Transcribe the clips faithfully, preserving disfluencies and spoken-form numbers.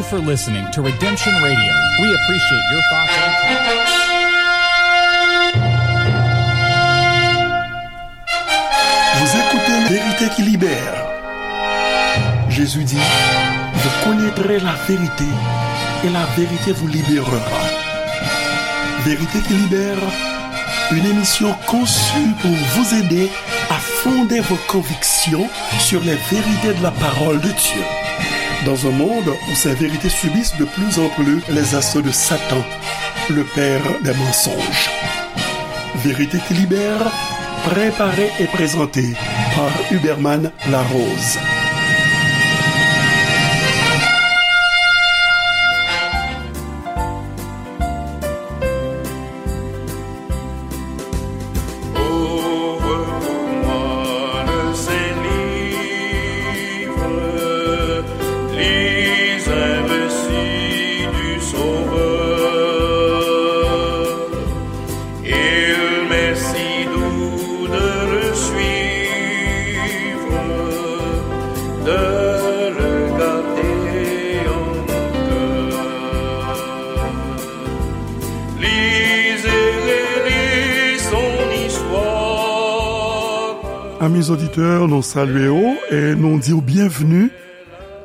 for listening to Redemption Radio. We appreciate your thoughts and comments. Vous écoutez Vérité qui libère. Jésus dit, vous connaîtrez la vérité et la vérité vous libérera. Vérité qui libère, une émission conçue pour vous aider à fonder vos convictions sur les vérités de la parole de Dieu. Dans un monde où ces vérités subissent de plus en plus les assauts de Satan, le père des mensonges. Vérité qui libère, préparée et présentée par Huberman Larose. Ouvre pour moi le Saint-Livre, lis un récit du Sauveur. Il m'est si doux de le suivre, de le garder en mon cœur. Lis et relis son histoire. Amis auditeurs, nou salye w e nou di w bienvenue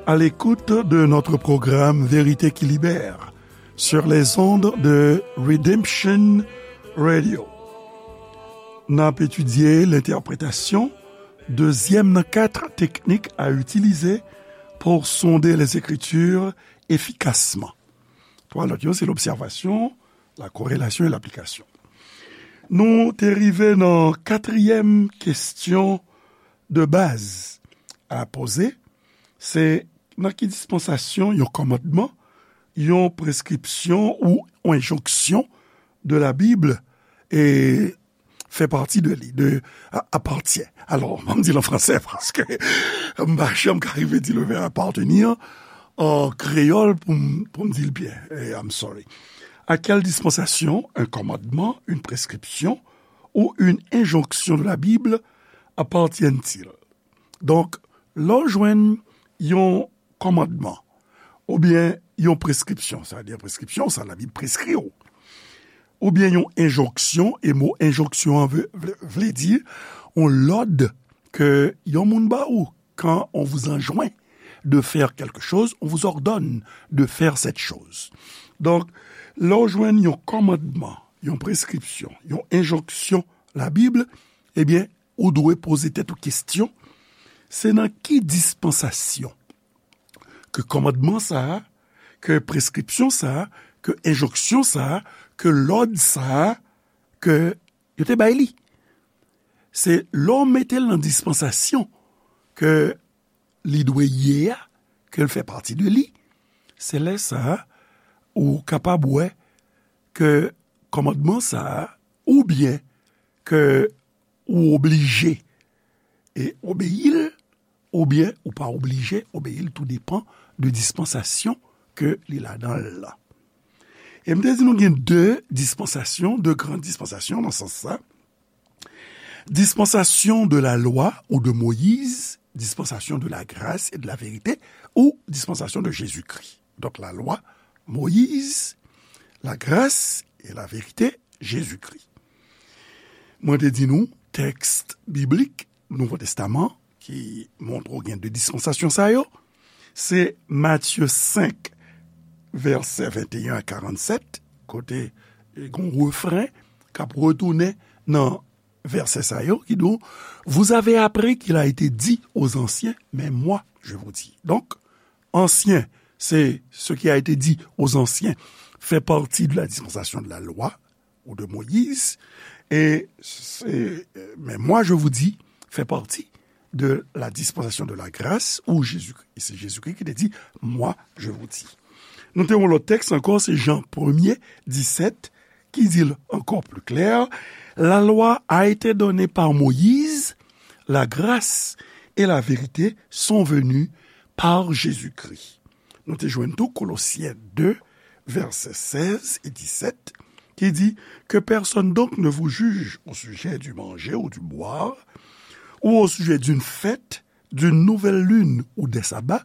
à l'écoute de notre programme Vérité qui libère sur les ondes de Redemption Radio. N ap etidye lentèpretasyon dezyèm nan kat teknik à utiliser pour sonder les Écritures efficacement. Twa lòt yo, se lobsèvasyon, la korelasyon e laplikasyon. Nou te rive nan katriyèm kesyon de baz a poze, se nan ki dispansasyon yon kòmandman, yon preskripsyon ou yon enjonksyon de la Bible e fè pati de li, de, a, appartient. Alò, m di l an fransè paske m pa janm ka rive di le verbe appartenir an kreyòl pou m, pou m di l byen. Eh, I'm sorry. À quelle dispensation un commandement, une prescription ou une injonction de la Bible appartiennent-ils? Donk, lè w jwenn yon kòmandman, oubyen yon preskripsyon, sa vle di preskripsyon, sa Labib preskri w, oubyen yon enjonksyon, e mo enjonksyon an vle, vle, vle di yon lòd ke yon moun ba ou, quand on vous enjoint de faire quelque chose, on vous ordonne de faire cette chose. Donk, lè w jwenn yon kòmandman, yon preskripsyon, yon enjonksyon Labib, ebyen, ou dwe poze tèt ou kesyon, se nan ki dispansasyon ke kòmandman sa a, ke preskripsyon sa a, ke enjonksyon sa a, ke lòd sa a, ke yo te bay li? Se lè w mete l nan dispansasyon ke li dwe ye a, ke l fè pati de li, se lè sa a ou kapab wè ke kòmandman sa a, oubyen ke ou oblije e obeyi l, oubyen ou pa oblije obeyi l, tou depan de dispansasyon ke li ladan l lan. E m te di nou gen de dispansasyon, de gran dispansasyon nan sans sa. Dispensation de la loi ou de Moïse, dispensation de la grâce et de la vérité, ou dispensation de Jésus-Christ. Donk, la lwa, Moyiz, la gras e la verite, Jezikri. Mwen te di nou, tèks biblik Nouvo Testaman ki montre w gen de dispansasyon sa yo, se Matye senk, vèsè venteyen a karannsèt, kote gen yon refren k ap retounen nan vèsè sa yo ki di w, Vous avez appris qu'il a été dit aux anciens, mais moi, je vous dis. Donk, ansyen, se ce qui a été dit aux anciens, fait partie de la dispensation de la loi ou de Moïse, et c'est, mais moi, je vous dis, fait partie de la dispensation de la grâce ou Jésus-Christ. Et c'est Jésus-Christ qui te dit, Moi, je vous dis. Nou te yon lòt tèks ankò, se Jan premye, disèt, ki di l ankò pli klè, La loi a été donnée par Moïse, la grâce et la vérité sont venues par Jésus-Christ. Nou te jwenn tou Kolosyen de, vèsè sèz e disèt, ki di, Que personne donc ne vous juge au sujet du manger ou du boire, ou au sujet d'une fête, d'une nouvelle lune ou des sabbats,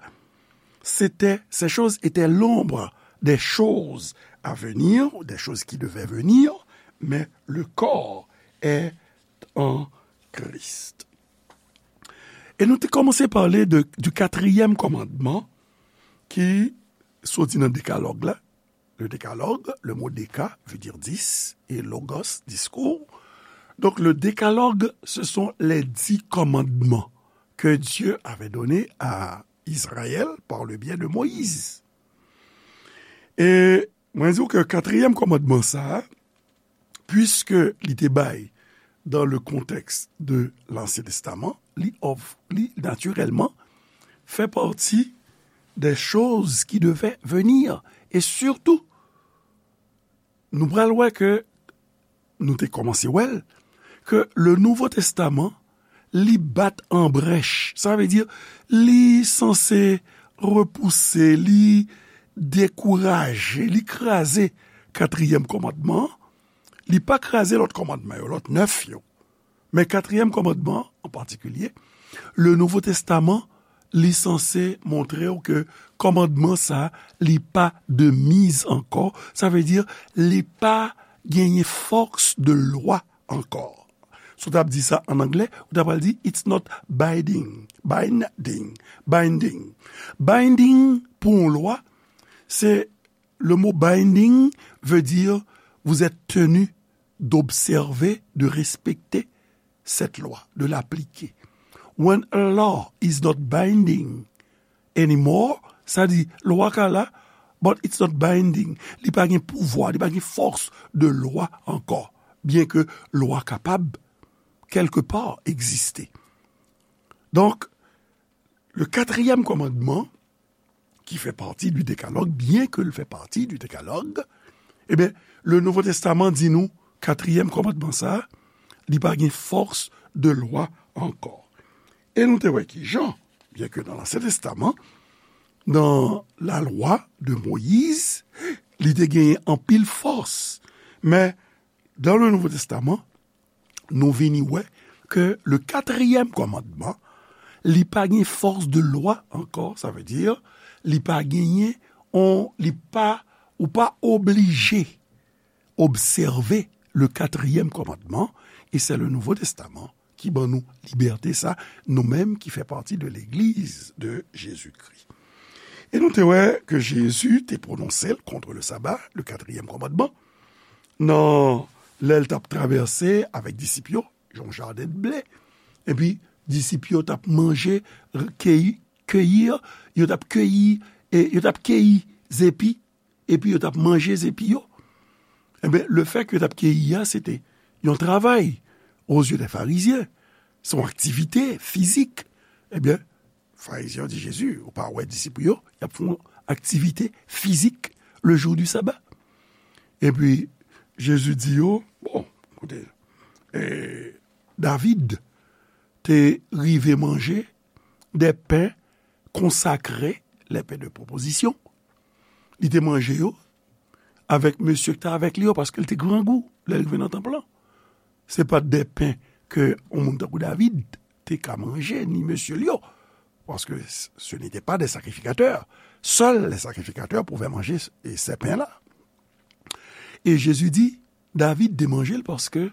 c'était, ces choses étaient l'ombre des choses à venir, des choses qui devaient venir, mais le corps est en Christ. E nou te kòmanse pale de, du quatrième commandement ki soti nan Dekalòg la. Le Décalogue, le mot déca veut dire dix, et logos, discours. Donc, le Décalogue, ce sont les dix commandements que Dieu avait donnés à Israël par le biais de Moïse. E mwen di w ke katriyèm kòmandman sa a, puiske li te bay dans le contexte de l'Ancien Testament, li, of, li natirèlman fè pati des choses qui devaient venir. E sitou, nou pral wè ke, nou te kòmanse wè l, ke le Nouvo Testaman, li bat an brèch. Sa vle di, li sanse repouse, li dekouraje, li kraze katriyèm kòmandman an. Li pa kraze lòt kòmandman yo, lòt nèf yo. Men katriyèm kòmandman an, an patikilye, le Nouvo Testaman, li sanse montre w ke kòmandman sa, li pa de mise ankò. Sa vle di, li pa genyen force de loi ankò. Si w t ap di sa an anglè, ou ta pral di, it's not binding. Binding. Binding. Binding, pou yon lwa, se, le mot binding veut dire vous êtes tenu d'observer, de respecter cette loi, de l'appliquer. When a law is not binding anymore, sa di, lwa ka la, but it's not binding. Li pa gen pouvwa, li pa gen force de loi ankò, byen ke lwa kapab, quelque part, egziste. Donk, le katriyèm kòmandman, ki fè pati du Décalogue, byen ke l fè pati du Décalogue, ebyen, le Nouvo Testaman di nou, katriyèm kòmandman sa, li pa gen force de loi ankò. E nou te wè ki jan, byen ke nan Lansyen Testaman, nan la loi de Moïse, li te genyen anpil force. Men, dans le Nouveau Testament, nou vini wè ke le katriyèm kòmandman, li pa gen force de loi ankò, sa vle di, li pa genyen, on, li pa, ou pa oblije obsève le katriyèm kòmandman, e se le Nouvo Testaman ki ban nou libète sa, nou menm ki fè pati de legliz de Jezikri. E nou te wè ke Jezi te pwononse l contre le sabbat, le quatrième commandement, nan lè l t ap travèse avèk disip yo, yon jaden de ble. Epi, disip yo t ap manje, keyi, keyi, yo t ap keyi, e yo t ap keyi zepi, epi yo t ap manje zepi yo. Enben, le fè ke yo t ap keyi a, se te yon travay, aux yeux des pharisiens, se yon aktivite fizik. Ebyen, Farizyen yo di Jezi, ou pa wè disip ou yo, y ap fè yon aktivite fizik le jour du sabbat. Epi, Jezi di yo, bon, koute, e, David te rive manje des pains consacrés, les pains de proposition. Li te manje yo avèk mesye ki te avèk li yo, paske l te grangou lè l rive nan tanp lan. Se pa t de pen ke yon moun tankou David te ka manje, ni mesye l yo, paske ce n'étaient pas des sacrificateurs. Seuls les sacrificateurs pouvaient manger ces pains-là. E Jezi di, David te manje l paske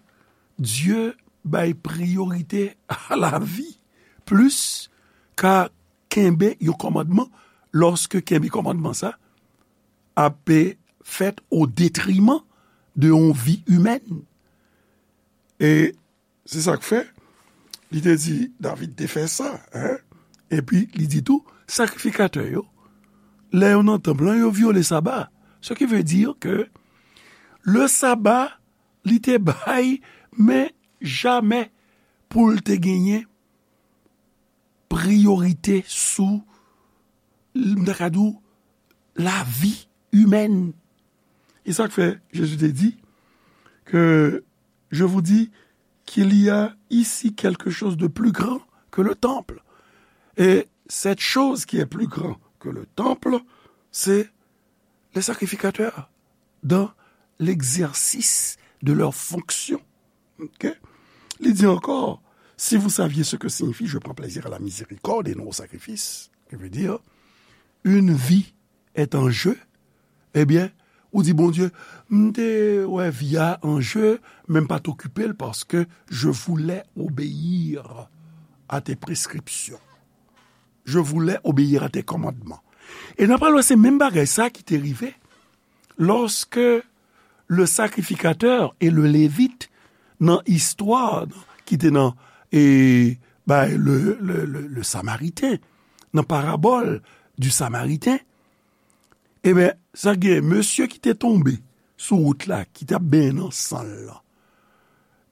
Dye bay priyorite a lavi plis ka kenbe yon kòmandman, lòske kenbe kòmandman sa ap fèt o detriman de yon vi imèn. E se sa k fè, li te di, David te fè sa, en. Epi, li di tou, sakrifikatè yo, lè yo nan tanp lan, yo vyole saba. Ce qui veut dire que le sabbat, li te bay, men jamè pou l te genyen priyorite sou, m ta ka di w, lavi imèn. E sa k fè Jezi te di ke, je vous dis qu'il y a ici quelque chose de plus grand que le temple. Et cette chose qui est plus grand que le temple, c'est les sacrificateurs dans l'exercice de leur fonction. Ok? Li di ankò, si vous saviez ce que signifie je prends plaisir à la miséricorde et non au sacrifice, qui veut dire, une vie est en jeu, ebyen, ou di, Bondye, m te wè vi a an je, men m pa t okipe l paske je voulais obéir à tes prescriptions. Je voulais obéir à tes commandements. E n ap pral wè se menm bagay sa ki te rive lòske le sacrificateur et le lévite nan istwa ki te nan e, bay le, le, le, le Samaritain, nan parabòl du Samaritain, ebyen, sa gen mesye ki te tonbe sou wout la, ki t ap benyen nan san l lan.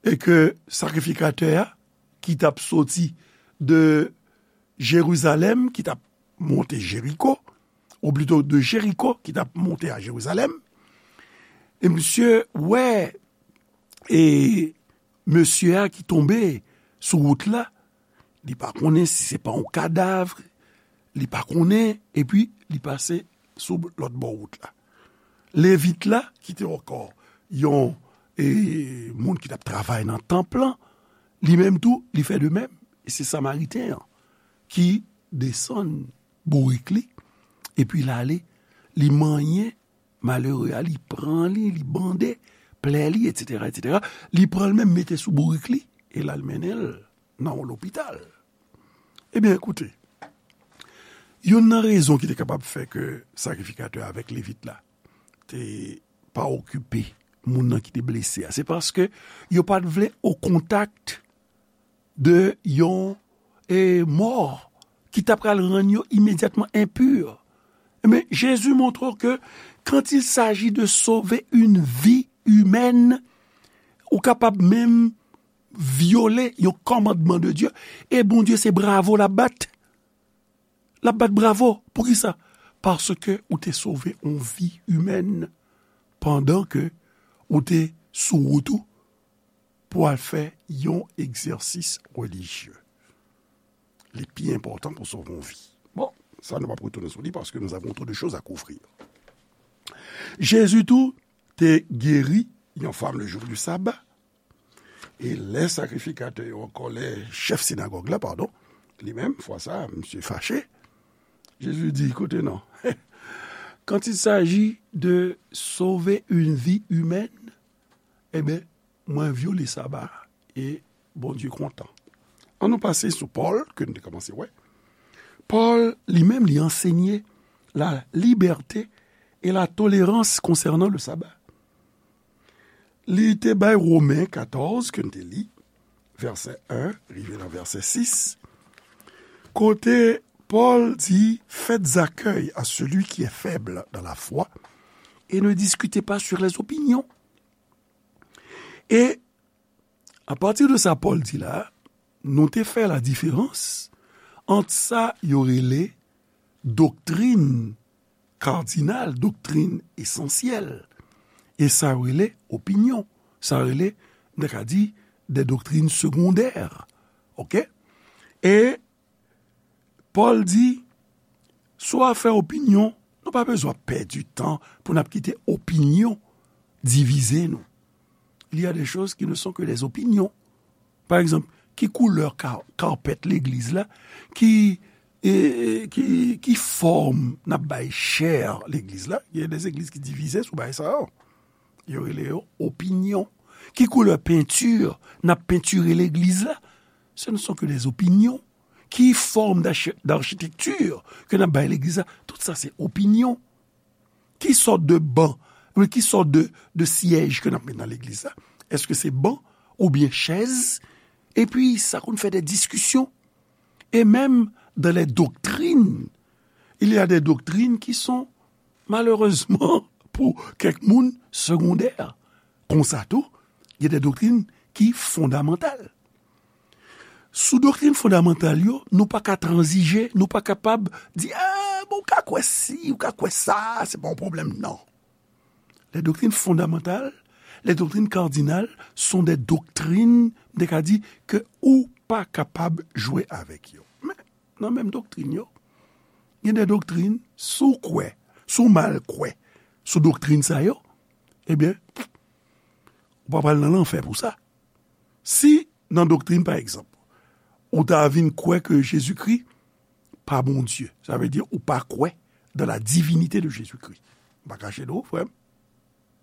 E ke sakrifikatè a, ki t ap soti de Jerizalèm, ki t ap monte Jeriko, ou plito de Jeriko, ki t ap monte a Jerizalèm, e misye wè, e mesye a ki tonbe sou wout la, li pa konnen si se pa yon kadav, li pa konnen, epi li pase sou lòt bò wout la. Levit la, ki te ankò yon e, moun ki t ap travay nan tanp lan, li menm tou, li fè de menm. E se Samariten an ki desann bourik li, epi l ale, li manyen malere a, li pran li, li bande plè li, etsetera, etsetera. Li pran l menm mete sou bourik li, e l al mennen l nan yon lopital. Ebyen, koute, youn nan rezon ki te kapab fè ke sakrifikatè avèk Levit la te pa okipe moun nan ki te blese a, se paske yo pa t vle o kontak de yon e, mò ki ta pral rann yo imedyatman enpi. Men Jezi montre w ke quand il s'agit de sauver une vie humaine, ou kapab menm vyole yon kòmandman de Dye, e Bondye se bravo l ap bat. L ap bat bravo. Poukisa? Paske ou te sove yon vi imèn pandan ke ou te sou wout ou pou al fè yon egzèsis relijye. Li pi enpòtan pou sove yon vi. Bon, sa nou p ap retounen sou li paske nous avons trop de choses à couvrir. Jezi tou te geri yon fanm le jou du saba. E lè sakrifikatè yo ankò, lè chèf sinagòg la, padon, li menm, fwa sa, misye fache, Jezi di, koute non. Quand il s'agit de sauver une vie humaine, ebyen, mwen vyole saba a, e Bondye kontan. Ann nou pase sou Pòl, ke nou te kòmanse wè. Pòl, li menm, li ansenye la liberté et la tolérance concernant le sabbat. Li te bay Women katòz, ke n te li, vèsè en rive nan vèsè sis, kote Pòl di, faites accueil à celui qui est faible dans la foi et ne discutez pas sur les opinions. E apati de sa Pòl di la, nou te fè la diferans ant sa yo rele doktrin kadinal, doktrin esansyèl, e sa yo rele opinyon, sa yo rele, nou ta ka di, de doktrin segondè. Oke? E Pòl di, sou afè opinyon, nou pa bezwen pèdi tan pou n ap kite opinyon divize nou. Il y a des choses qui ne sont que des opinions. Pa egzanp, ki koulè ka-, kapèt legliz la? Ki, e, ki, ki fòm n ap bay chè legliz la? Gen de legliz ki divize sou bagay sa yo. Yo rele yo opinyon. Ki koulè penti n ap pentire legliz la? Ce ne sont que des opinions. Ki fòm d'archi-, d'architecture ke n ap bay legliz la? Tout sa se opinyon. Ki sòt de ban, oubyen ki sòt de, de syèj ke n ap met nan legliz la? Èske se ban oubyen chèz? Epi, sa konn fè de diskisyon. Et même dans les doctrines, il y a des doctrines qui sont, malheureusement, pour kèk moun, segondères. Konsa tou, gen de doktrin ki fondamantal. Sou doktrin fondamantal yo, nou pa ka tranzije, nou pa kapab di, ah, bon, ou ka kwè si, ou ka kwè sa, se pa yon pwoblèm, non. Les doctrines fondamentales, les doctrines cardinales sont des doctrines, m te ka di, ke ou pa kapab jwe avèk yo. Men, nan menm doktrin yo, gen de doktrin, si w kwè, si w mal kwè sou doktrin sa yo, ebyen, ou pa pral nan lanfè pou sa. Si nan doktrin, pa egzanp, ou ta vin kwè ke Jezikri pa Bondye, sa vle di ou pa kwè dans la divinité de Jésus-Christ. M pa kache de ou, frè m,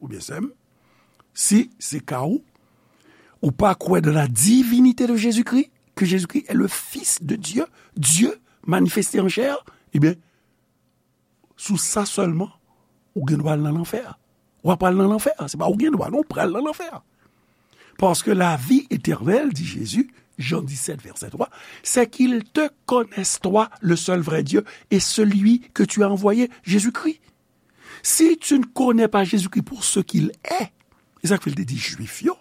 oubyen sè m, si se ka ou, ou pa kwè dans la divinité de Jésus-Christ, que Jésus-Christ est le Fils de Dieu, Dieu manifesté en chair, ebyen, sou sa sèlman, ou gen dwa al nan lanfè. W ap al nan lanfè. Se pa ou gen dwa, non, ou pral nan lanfè. Parce que la vie éternelle, dit Jésus, Jean dix-sept, verset trois, c'est qu'ils te connaissent, toi, le seul vrai Dieu, et celui que tu as envoyé, Jésus-Christ. Si tu ne connais pas Jésus-Christ pour ce qu'il est, e sa k fè l te di Jwif yo,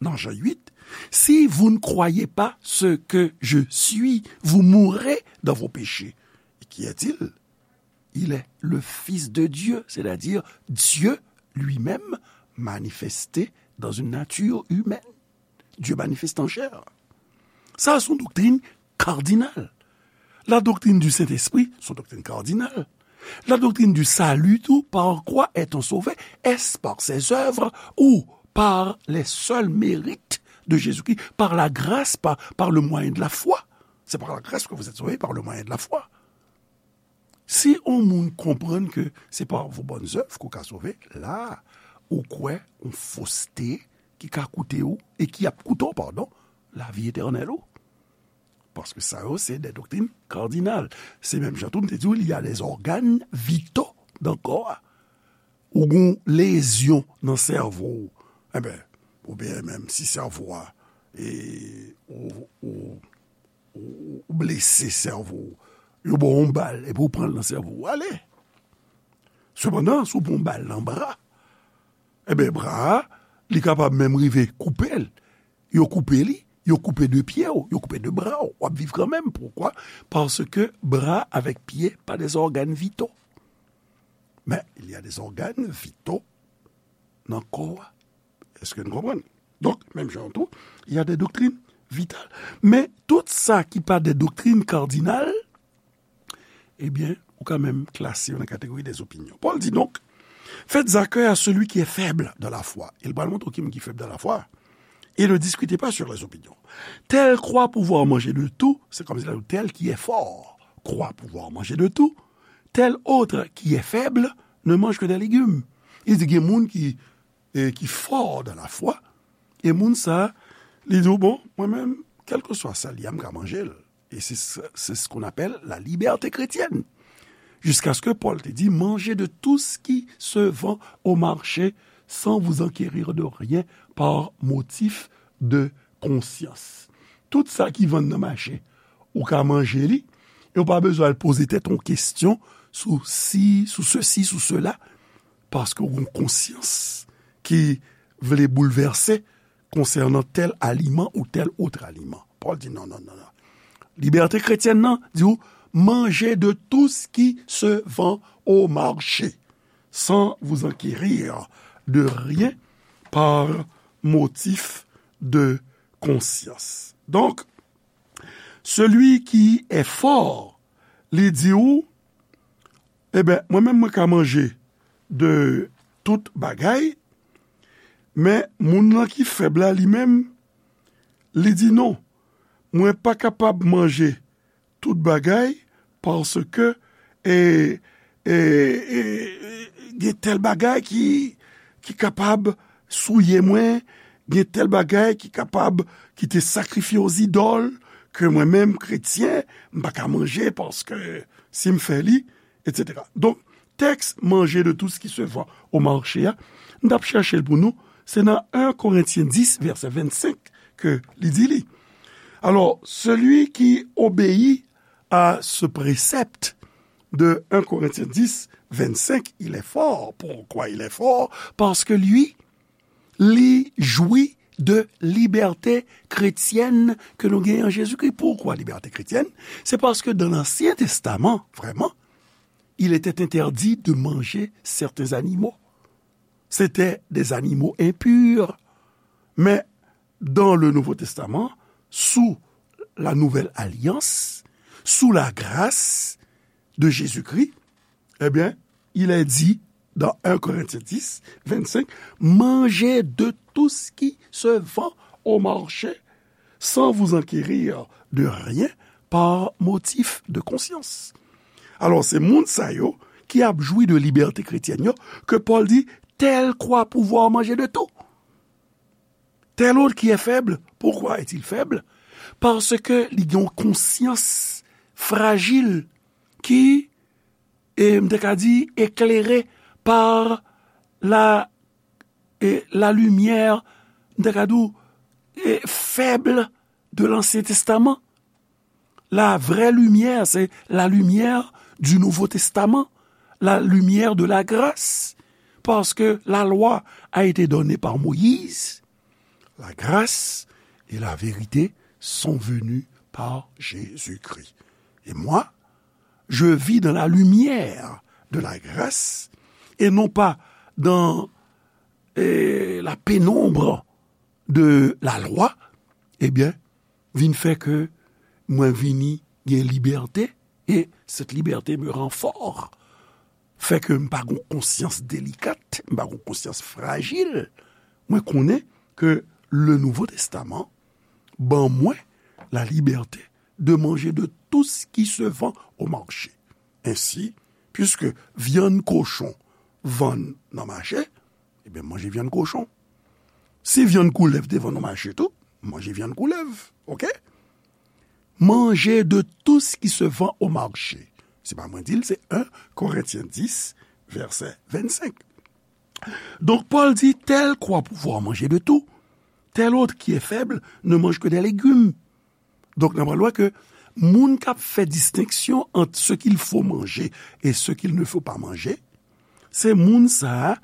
nan Jan uit, si vous ne croyez pas ce que je suis, vous mourrez dans vos péchés. Et qui est-il? Il est le Fils de Dieu, c'est-à-dire Dieu lui-même manifesté dans une nature humaine. Dieu manifesté en chair. Sa, se yon doktrin kardinal. La doctrine du Saint-Esprit, se yon doktrin kardinal. La doctrine du salut, tout, par quoi est-on sauvé? Est-ce par ses œuvres ou par les seuls mérites de Jésus-Christ, par la grâce, par, par le moyen de la foi? C'est par la grâce que vous êtes sauvés, par le moyen de la foi. Si yon moun konprann ke se pa vos bonnes œuvres ke w ka sove, la, ou kwè yon foste ki ka koute w, e ki ap koute w, padon, lavi etènèl ou. Paske sa yo, se de doktrin kardinal. Se menm jan tou, m te di w, il y a des organes vitaux dans corps a. Ou gon lezyon nan sèvo w. Enben, oubyen menm si sèvo a, e, ou, ou, ou, ou blese sèvo w, yo ba w yon bal, epi w pran l nan sèvo w, ale. Sepandan, si w pran yon bal nan bra, enben, bra a, li kapab menm rive koupe l. Yo koupe li, yo koupe de pye w, yo koupe de bra w, w ap viv kanmenm. Poukwa? Paske bra avèk pye pa de organes vitaux. Men, il y a des organes vitaux nan kò a. Èske n konprann? Donk, menm jan tou, il y a des doctrines vitales. Men, tout sa ki pa de doktrin kardinal, ebyen, ou ka menm klase yo nan kategori des opinions. Paul dit donc, faites accueil à celui qui est faible dans la foi. E l pral montre w ki moun ki fèb dans la foi. Et ne discutez pas sur les opinions. Tel croit pouvoir manger de tout, c'est comme si tel qui est fort croit pouvoir manger de tout, tel autre qui est faible ne mange que des légumes. Li di gen moun ki, e, ki fò dans la foi, e moun sa, li di w, bon, mwen menm, kèlkeswa sa l ye a, m ka manje l. E se, se, se ce qu'on appelle la liberté chrétienne. Jusqu'à ce que Paul te di, mangez de tout ce qui se vend au marché sans vous enquérir de rien par motif de conscience. Tout sa ki vann nan mache, ou ka manje li, e ou pa bezwen al poze tèt ou kesyon sou si, sou sesi, sou sela, paske ou gon konsyans ki vle boulvèse konsènan tèl aliman ou tèl ot aliman. Pòl di non, non, non, non. Libète kretyèn nan di w, mangez de tout ce qui se vend au marché, sans vous enquérir de rien par motif de conscience. Donk, celui qui est fort, li di w, eben, mwen menm, mwen ka manje de tout bagay, men moun nan ki fèb la, li menm, li di non, mwen pa kapab manje tout bagay, paske, e, e, e, gen tèl bagay ki, ki kapab souye mwen, gen tèl bagay ki kapab, ki te sakrifye o zidòl, ke mwen menm, kretyen, m pa ka manje, paske si m fè li, etsetera. Donk, tèks manje de tout ce qui se vend au marché a, m t ap chèche l pou nou, se nan en Korentyen dis, vèsè vennsenk, ke li di li. Alors, celui qui obéit à ce précepte de un Corinthiens dix, vingt-cinq, il est fort. Pourquoi il est fort? Parce que lui, li jwi de libète kretyèn ke nou genyen an Jezikri. Poukwa libète kretyèn? Se paske dan Ansyen Testaman, vrèman, il était interdit de manger certains animaux. C'était des animaux impurs. Mais dans le Nouveau Testament, sous la nouvelle alliance, sous la grâce de Jésus-Christ, eh bien, il est dit dans un Corinthiens dix, vingt-cinq, mangez de tout ce qui se vend au marché, sans vous enquérir de rien par motif de conscience. Alò, se moun sa yo ki ap jwi de libète kretyèn yo, ke Pòl di, tel croit pouvoir manger de tout. Tel autre qui est faible, pourquoi est-il faible? Paske li gen yon konsyans frajil ki, e, m te ka di, eklere par la, e, la limyè, m te ka di w, e, fèb de Lansyen Testaman. La vraie lumière, c'est la lumière du Nouveau Testament, la lumière de la grâce, parce que la loi a été donnée par Moïse, la grâce et la vérité sont venues par Jésus-Christ. Et moi, je vis dans la lumière de la grâce et non pas dans, eh, la pénombre de la loi, ebyen, vin fè ke mwen vini gen libète, e cette liberté me rend fort. Fè ke m pa gon konsyans delikat, m pa gon konsyans frajil. Mwen konnen ke le Nouveau Testament ban mwen la liberté de manger de tout ce qui se vend au marché. Ainsi, puisque vyann kochon vann nan mache, ebyen, manje vyann kochon. Si vyann koulèv te vann nan mache tou, manje vyann koulèv, oke? Manger de tout ce qui se vend au marché. Se pa mwen di l, se en Korentyen dis, vèsè vennsenk. Donk, Pòl di, tel croit pouvoir manger de tout, tel autre qui est faible ne mange que des légumes. Donk, n ap wè ke moun k ap fè distenksyon ant ce qu'il faut manger et ce qu'il ne faut pas manger, se moun sa a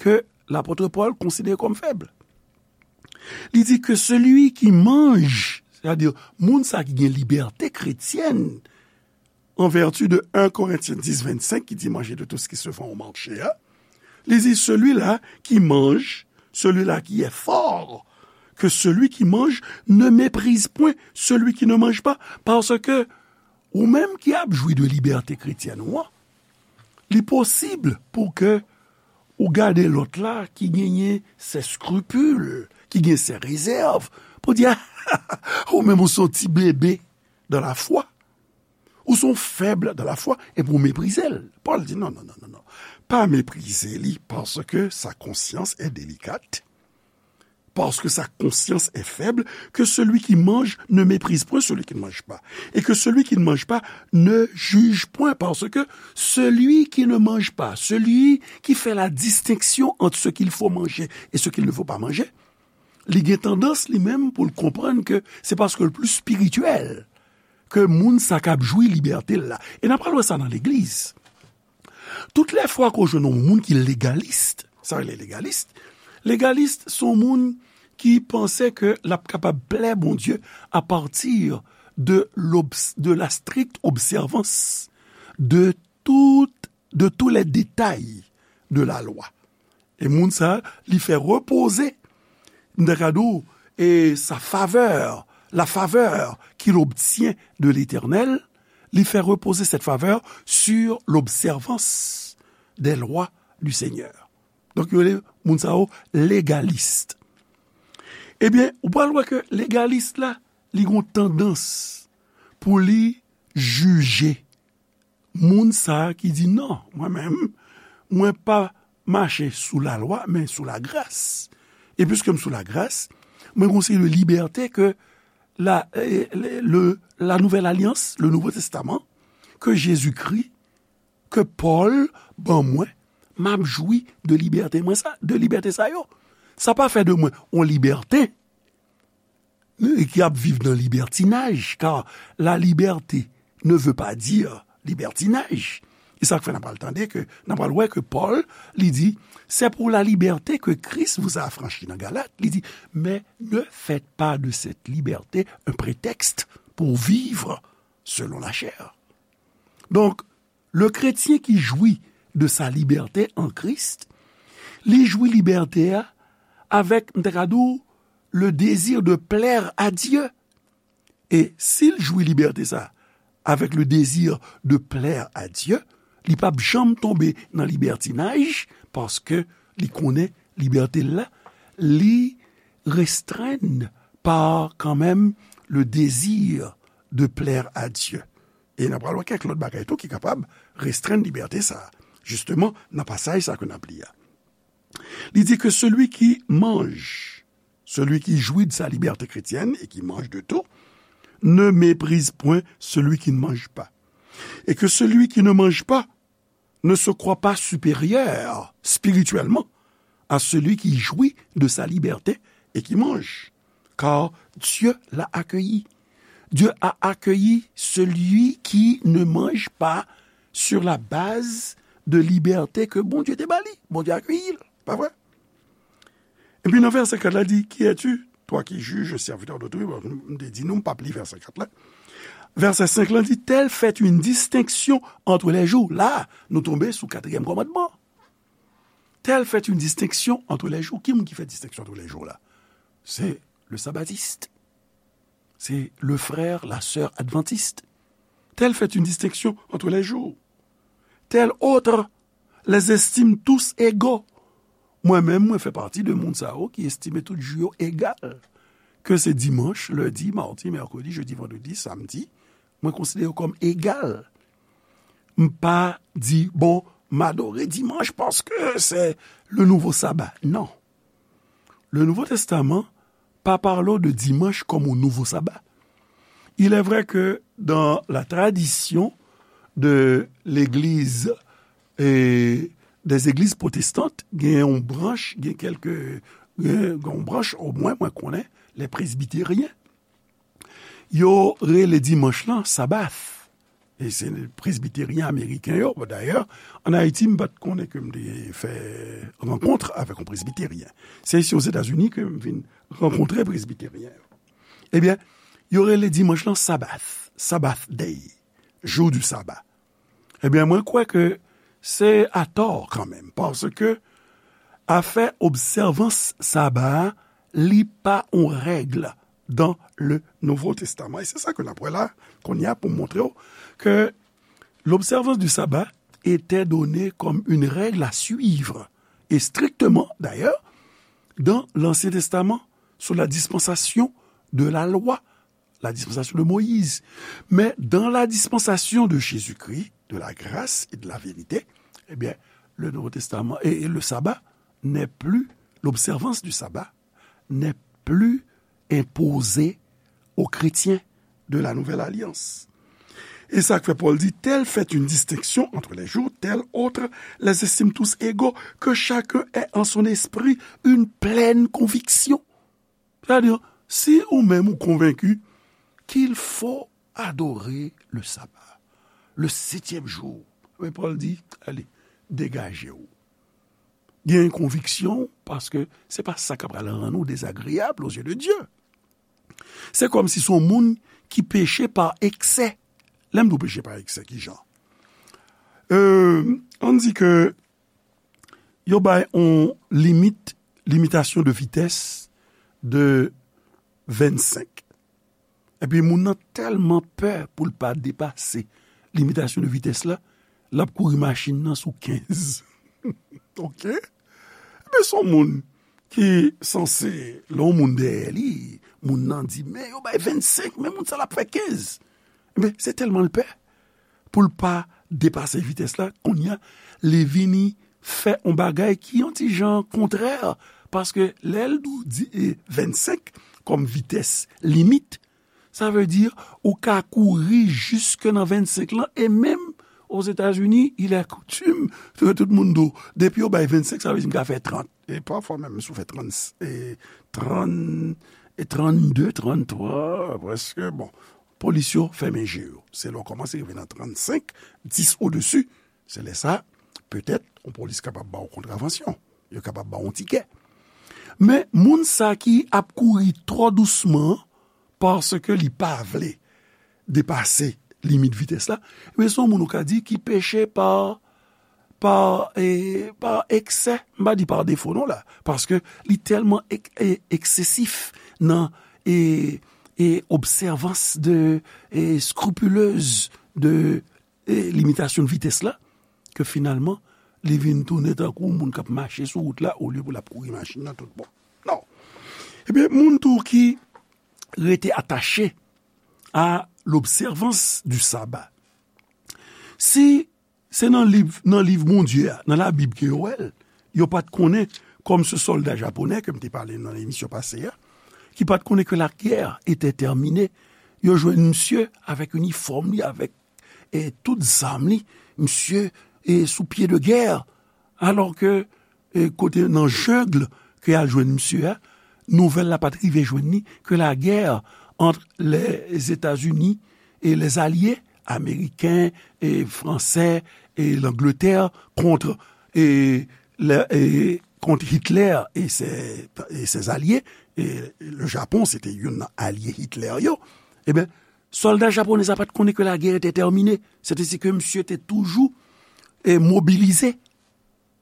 ke lapot Pòl konsidere kòm fèb. Li di ke celui qui mange, sètadi moun sa ki gen libète kretyèn, en vertu de en Korentyen dis vennsenk ki di manger de tout ce qui se vend au marché, hein, li di celui-là qui mange, celui-là qui est fort, que celui qui mange ne méprise point celui qui ne mange pas, parce que ou menm ki ap jwi de libète kretyèn ou an, li posib pou ke ou gade lòt la ki genyen ses scrupules, ki gen ses réserves, pou di, ah, ou menm ou se yon ti bebe dans la foi. Ou se yon fèb dans la foi, epi ou meprize l. Pòl di, non, non, non, non, non. Pa meprize li, paske sa konsyans est délicate, parce que sa conscience est faible, que celui qui mange ne méprise point celui qui ne mange pas, et que celui qui ne mange pas ne juge point, parce que celui qui ne mange pas, celui qui fait la distinction entre ce qu'il faut manger et ce qu'il ne faut pas manger, li gen tandans li menm pou l konprann ke se paske l pli espirityèl ke moun sa k ap jwi libète l la. E n ap pral wè sa nan legliz. Tout lè fwa ke w jwenn yon moun ki legalis, sa rele legalis, legalis se yon moun ki panse ke l ap kapab plè Bondye apati de, de la stricte observance de tout, de tous les détails de la loi. E moun sa, li fè repoze, m ta ka di w, e sa favè, la favè qu'il obtient de l'Éternel, li fè repoze cette faveur sur l'observance des lois du Seigneur. Donk, yo rele moun sa yo legalis. Ebyen, ou pral wè ke legalis la, li gon tandans pou li jije moun sa a ki di, non, mwen menm, mwen pa mache sou lalwa, men sou lagras. E piske m sou lagras, mwen gon seri de libète ke la, eh, le, le, la nouvelle alliance, le Nouveau Testament, ke Jezikri, ke Pòl ban mwen, m ap jwi de libète mwen sa, de libète sa yo. Sa pa fè de mwen yon libète ki ap viv nan libètinaj, car la liberté ne veut pas dire libertinage. E sa k fè n ap pral tande ke, n ap pral wè ke Pòl, li di, c'est pour la liberté que Christ vous a affranchis nan Galat, li di, mais ne faites pas de cette liberté un prétexte pour vivre selon la chair. Donk, le chrétien qui jouit de sa liberté en Christ, li jwi libète a avèk, m ta ka di w, le désir de plaire à Dieu. E si l jwi libète sa avèk le désir de plaire à Dieu, li p ap janm tonbe nan libètinaj, paske li konnen libète l la, li restrenn pa kanmenm le désir de plaire à Dieu. E n ap pral wè kèk lòt bagay tou ki kapab restrenn libète sa a. Jisteman, nan pasaj sa ke n ap li a. Li di ke celui qui mange, celui qui jouit de sa liberté chrétienne et qui mange de tout, ne méprise point celui qui ne mange pas. Et que celui qui ne mange pas ne se croit pas supérieur spirituellement à celui qui jouit de sa liberté et qui mange, car Dieu l'a accueilli. Dieu a accueilli celui qui ne mange pas sur la base de liberté ke Bondye te ba li. Bondye akeyi l, pa vre? Epi nan vèsè kat la di, qui es-tu, toi qui juges, serviteur d'autrui? Bon, m te di nou, m p ap li vèsè kat la. Vèsè senk la di, telle fait une distinction entre les jours. La, nou tonbe sou katriyèm kòmandman. Telle fait une distinction entre les jours. Ki moun ki fè distenksyon entre les jours la? C'est le sabbatiste. C'est le frère, la sœur adventiste. Telle fait une distinction entre les jours. Tel autre les estime tous égaux. Mwen menm, mwen fè pati de moun sa yo ki estime tout jou yo egal. Ke se dimanch, lendi, madi, mèkredi, jedi, vandredi, samdi, mwen konsidere yo kòm egal. M pa di, bon, m adore dimanch paske se le nouveau sabbat. Non. Le Nouveau Testament pa pale de dimanche comme un nouveau sabbat. Il est vrai que dans la tradition de l'église et des églises protestantes, gen yon branch, gen kèlke, gen yon branch, omwen mwen konnen, les presbytériens. Yo rele dimanch lan Sabbath. E se presbiteryen ameriken yo. Dayè, ann Ayiti, m pa t konnen ke m te fè rankont avèk yon presbiteryen. Se isi Ozetazini ke m vin rankontre presbiteryen yo. Ebyen, yo rele dimanch lan Sabbath, Sabbath Day, jour du sabbat. Ebyen, mwen kwè ke se atò kanmenm, paske afè obsèvans saba a, li pa yon règ dans le Nouveau Testament. E se sa ke n ap wè la, kounye a, pou montre w ke l'observance du sabbat était donnée comme une règle à suivre, et strictement d'ailleurs, dans l'Ancien Testament, sous la dispensation de la loi, la dispensation de Moïse. Mais dans la dispensation de Jésus-Christ, de la grâce et de la vérité, eh bien, le Nouveau Testament et, et le sabbat n'est plus, l'observance du sabbat n'est plus imposée aux chrétiens de la Nouvelle Alliance. Et ça fait Paul dit, telle fait une distinction entre les jours, telle autre les estime tous égaux, que chacun ait en son esprit une pleine conviction. Sètadi, si ou menm ou konvenki qu'il faut adorer le sabbat, le septième jour, men Pòl di, ale, degaje w. Gen konviksyon, paske se pa sa k ap pral rann ou dezagreab aux yeux de Dieu. Se kòmsi se yon moun ki peche pa eksè. Lè m di w peche pa eksè, ki jan? Euh, ann di ke yo bay yon limit, limitasyon de vitès de vennsenk. Epi moun nan tèlman pè pou l pa depase limitasyon de vitès la, l ap kouri machin nan sou kenz. Oke? Ebyen, se yon moun ki sanse, lè yon moun dèyè li, moun nan di, men yo bay vennsenk, men moun sa l ap fè kenz. Ebyen, se tèlman l pè pou l pa depase vitès la, kounye a, li vini fè yon bagay ki yon ti jan kontrè, paske lè l di, e, vennsenk kòm vitès limit, sa vle di ou ka kouri jiske nan vennsenk lan, e menm Ozetazini, il est coutume ke tout moun di w, depi yo bay vennsenk, sa vle di m ka fè trant. E pafwa menm, si w fè trant, e, trant, e trannde, tranntwa, prèske, bon, polis yo fèmen je yo. Se lè w kòmanse rive nan trannsenk, dis odesi, se lè sa, petèt, yon polis kapab ba w kontravansyon. Yo kapab ba w yon tikè. Men, moun sa ki ap kouri twò dousman, paske li pa vle depase limit vitès la, men se yon moun ou ka di ki peche pa, pa, e, pa eksè. M pa di pa defo non la, paske li tèlman ek-, e, eksesif nan, e, e, obsèvans de, e, skripilez de, e, limitasyon de vitès la, ke finalman, li vin tounen tankou moun k ap mache sou wout la, olye pou l ap kouri machin nan tout bon. Non. Ebyen, moun tou ki rete atache à l'observance du sabbat. Si se nan liv, nan liv Bondye a, nan Labib ke yo wè l, yo pa t konnen, kòm se sòlda japonè ke m te pale nan emisyon pase a, ki pa t konnen ke la guerre était terminée, yo jwenn misye avèk inifòm li, avèk, e, tout zam li, misye, e, sou pye de gè, alò ke, e, kote nan jeng ke y al jwenn misye a, nouvèl la pa t rive jwenn li ke la guerre entre les États-Unis et les alliés américains et français et l'Angleterre contre, et, le- et contre Hitler et ses, et ses alliés. Et le Japon, se te youn nan alye Hitler yo. Ebyen, sòlda japonè sa pa t konnen ke la guerre était terminée. Sètadi ke misye te toujou, e, mobilize.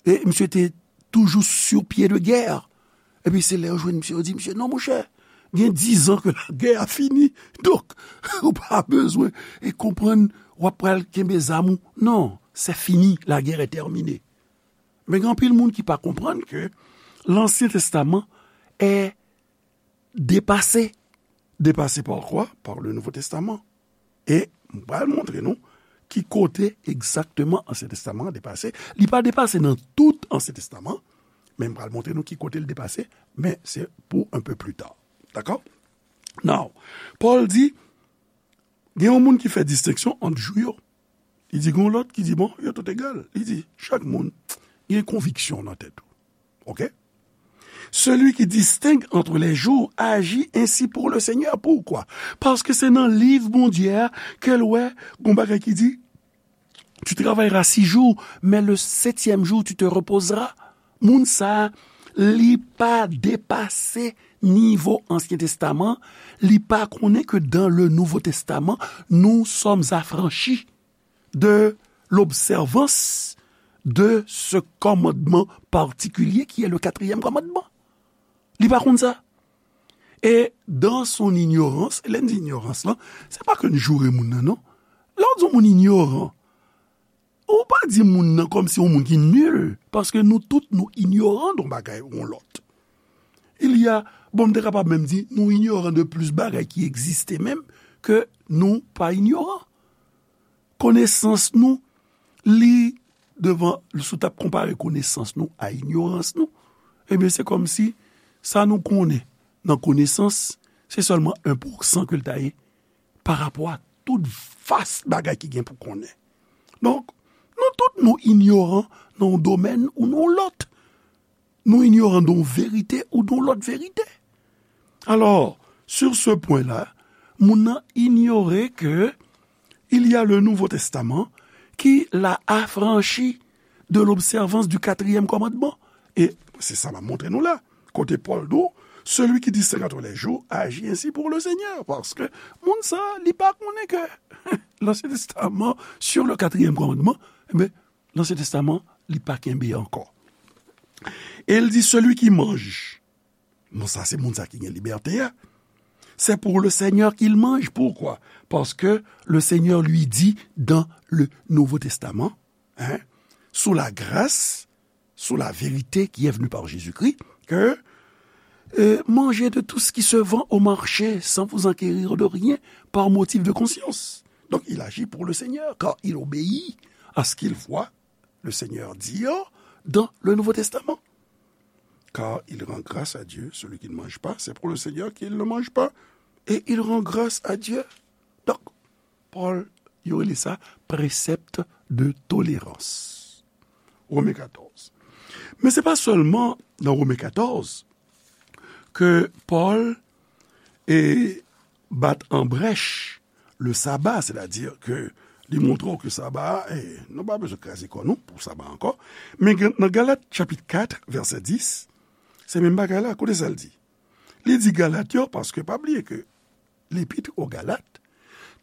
E misye te toujou sou pye de gè. Epi se lè yo jwenn misye, yo di, "Misye, non, monchè, gen dizan ke lagè a fini. Donk, ou pa bezwen e konprann w ap pral kenbe zam ou. Non, c'est fini, la guerre est terminée." Men gen anpil moun ki pa konprann ke Lansyen Testaman est dépassé. Dépassé par quoi? Par le Nouveau Testament. E m pral montre nou ki kote egzakteman Ansyen Testaman an depase. Li pa depase nan tout Ansyen Testaman, men m pral montre nou ki kote l depase, men se pou un peu plus tard. Dakò? Now, Pòl di, gen yon moun ki fè distenksyon ant jou yo. Li di, gen yon lòt ki di, bon, yo tout egal. Li di, chak moun gen konviksyon nan tèt ou. Ok? Celui qui distingue entre les jours agit ainsi pour le Seigneur. Pourquoi? Paske se nan liv Bondye a ke l wè gon bagay ki di, tu travailleras six jours, mais le septième jour, tu te reposeras. Moun sa, li pa depase nivo Ansyen Testaman, li pa konnen ke dans le Nouveau Testament, nous sommes affranchis de l'observance de ce commandement particulier qui est le quatrième commandement. Li pa konn sa. E dans son ignorance, lè n di ignorance lan, se pa ke n joure moun nan, non. Lè w di yon moun inyoran, ou pa di moun nan kòmsi yon moun ki nil, paske nou tout nou inyoran de yon bagay ou yon lòt. Il y a, bon, m te kapab menm di, nou inyoran de plis bagay ki egziste menm ke nou pa inyoran. Konesans nou, li devan, si w t ap konpare konesans nou a inyorans nou, ebyen, se kòmsi sa nou konnen nan konesans, se sèlman en pousan ke l ta ye pa rapò a tout vas bagay ki gen pou konnen. Donk, nou tout nou inyoran nan yon domèn ou nan yon lòt. Nou inyoran de yon verite ou de yon lòt verite. Alors, sur ce point-là, moun nan inyore ke il y a le Nouveau Testament qui l'a affranchi de l'observance du quatrième commandement. E se sa m ap montre nou la. Kote Pòl di w, celui qui distingue entre les jours agit ainsi pour le Seigneur. Paske moun sa, li pa konnen ke Lansyen Testaman, sur le quatrième commandement, ebyen, Lansyen Testaman, li pa kenbe ankò. E l di, celui qui mange. Bon, sa, se moun sa ki gen libète a. C'est pour le Seigneur qu'il mange. Pourquoi? Parce que le Seigneur lui dit dans le Nouveau Testament, hein, sous la grâce, sous la vérité qui est venue par Jésus-Christ, que, euh, mangez de tout ce qui se vend au marché sans vous enquérir de rien par motif de conscience. Donc, il agit pour le Seigneur, car il obéit à ce qu'il voit le Seigneur dire dans le Nouveau Testament. Car il rend grâce à Dieu, celui qui ne mange pas, c'est pour le Seigneur qu'il ne mange pas, et il rend grâce à Dieu. Donk, Pòl, yo rele sa precept de tolérance. Women katòz. Men se pa sèlman nan Women katòz ke Pòl e bat an brèch le saba, sètadi ke li montre w ke saba a, e, nou pa bezwen kraze kò nou pou saba ankò. Men gen- nan Galat chapit kat, vèsè dis, se menm bagay la, koute sa l di. Li di Galat yo, paske pa bliye ke Lepit o Galat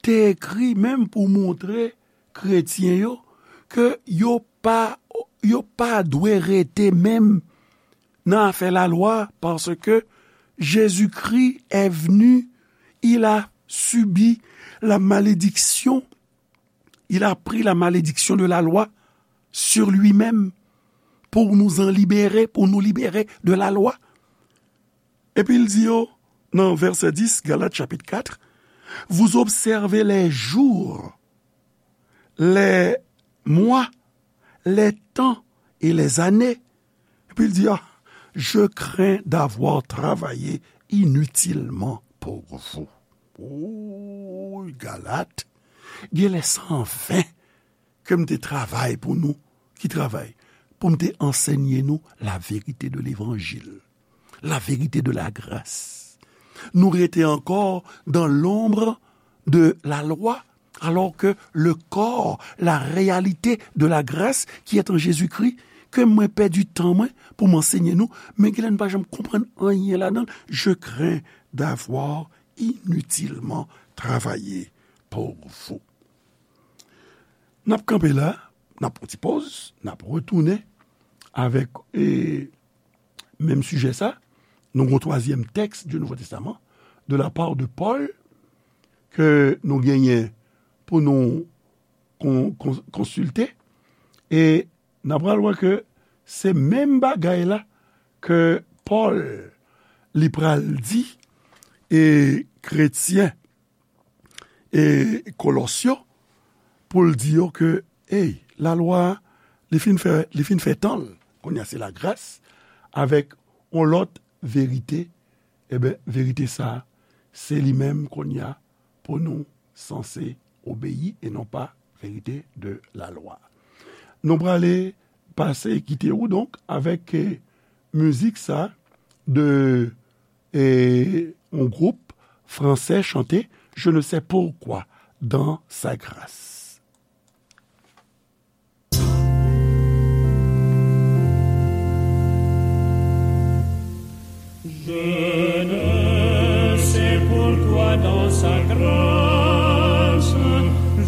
te ekri menm pou montre kretyen yo ke yo pa, yo pa dwe rete menm nan afè lalwa, paske Jezikri est venu, il a subi la malédiction, il a pris la malédiction de la loi sur lui-même pour nous en libérer, pour nous libérer de la loi. Epi l di yo nan vèsè dis, Galat chapit kat, vous observez les jours, les mois, les temps et les années. Epi l di, ah, je crains d'avoir travaillé inutilement pour vous. Oy, Galat, genlè se an ven ke m te travay pou nou. Ki travay? Pou m te ansèye nou la vérité de l'évangile, la vérité de la grâce. Nou rete encore dans l'ombre de la loi, alors que le corps, la réalité de la grâce qui est en Jésus-Christ, ke mwen pèdi tan mwen pou m anseye nou, men genlè nou pa janm konprann anyen ladan l. Je crains d'avoir inutilement travaillé pour vous. N ap kanpe la, n ap pran ti pòz, n ap retounen avèk, e, menm sijè sa. Nou gen yon twazyèm tèks du Nouveau Testament, de la part de Paul, ke nou genyen pou nou kon-, kon-, konsilte, e n ap pral wè ke se menm bagay la ke Pòl li pral di, e, kretyen, e, Kolòs yo, pou l di yo ke, ey, lalwa a, li fin fè, li fin fè tan l, kounye a se lagras, avèk yon lòt verite, eben, verite sa a, se li menm kounye a pou nou sanse obeyi e non pa verite de la lwa. Nou prale pase kite ou donk avèk, eh, mizik sa de, eh, yon gwoup fransè chante Je ne sais pourquoi dans sa grâce. Je ne sais pourquoi dans sa grâce,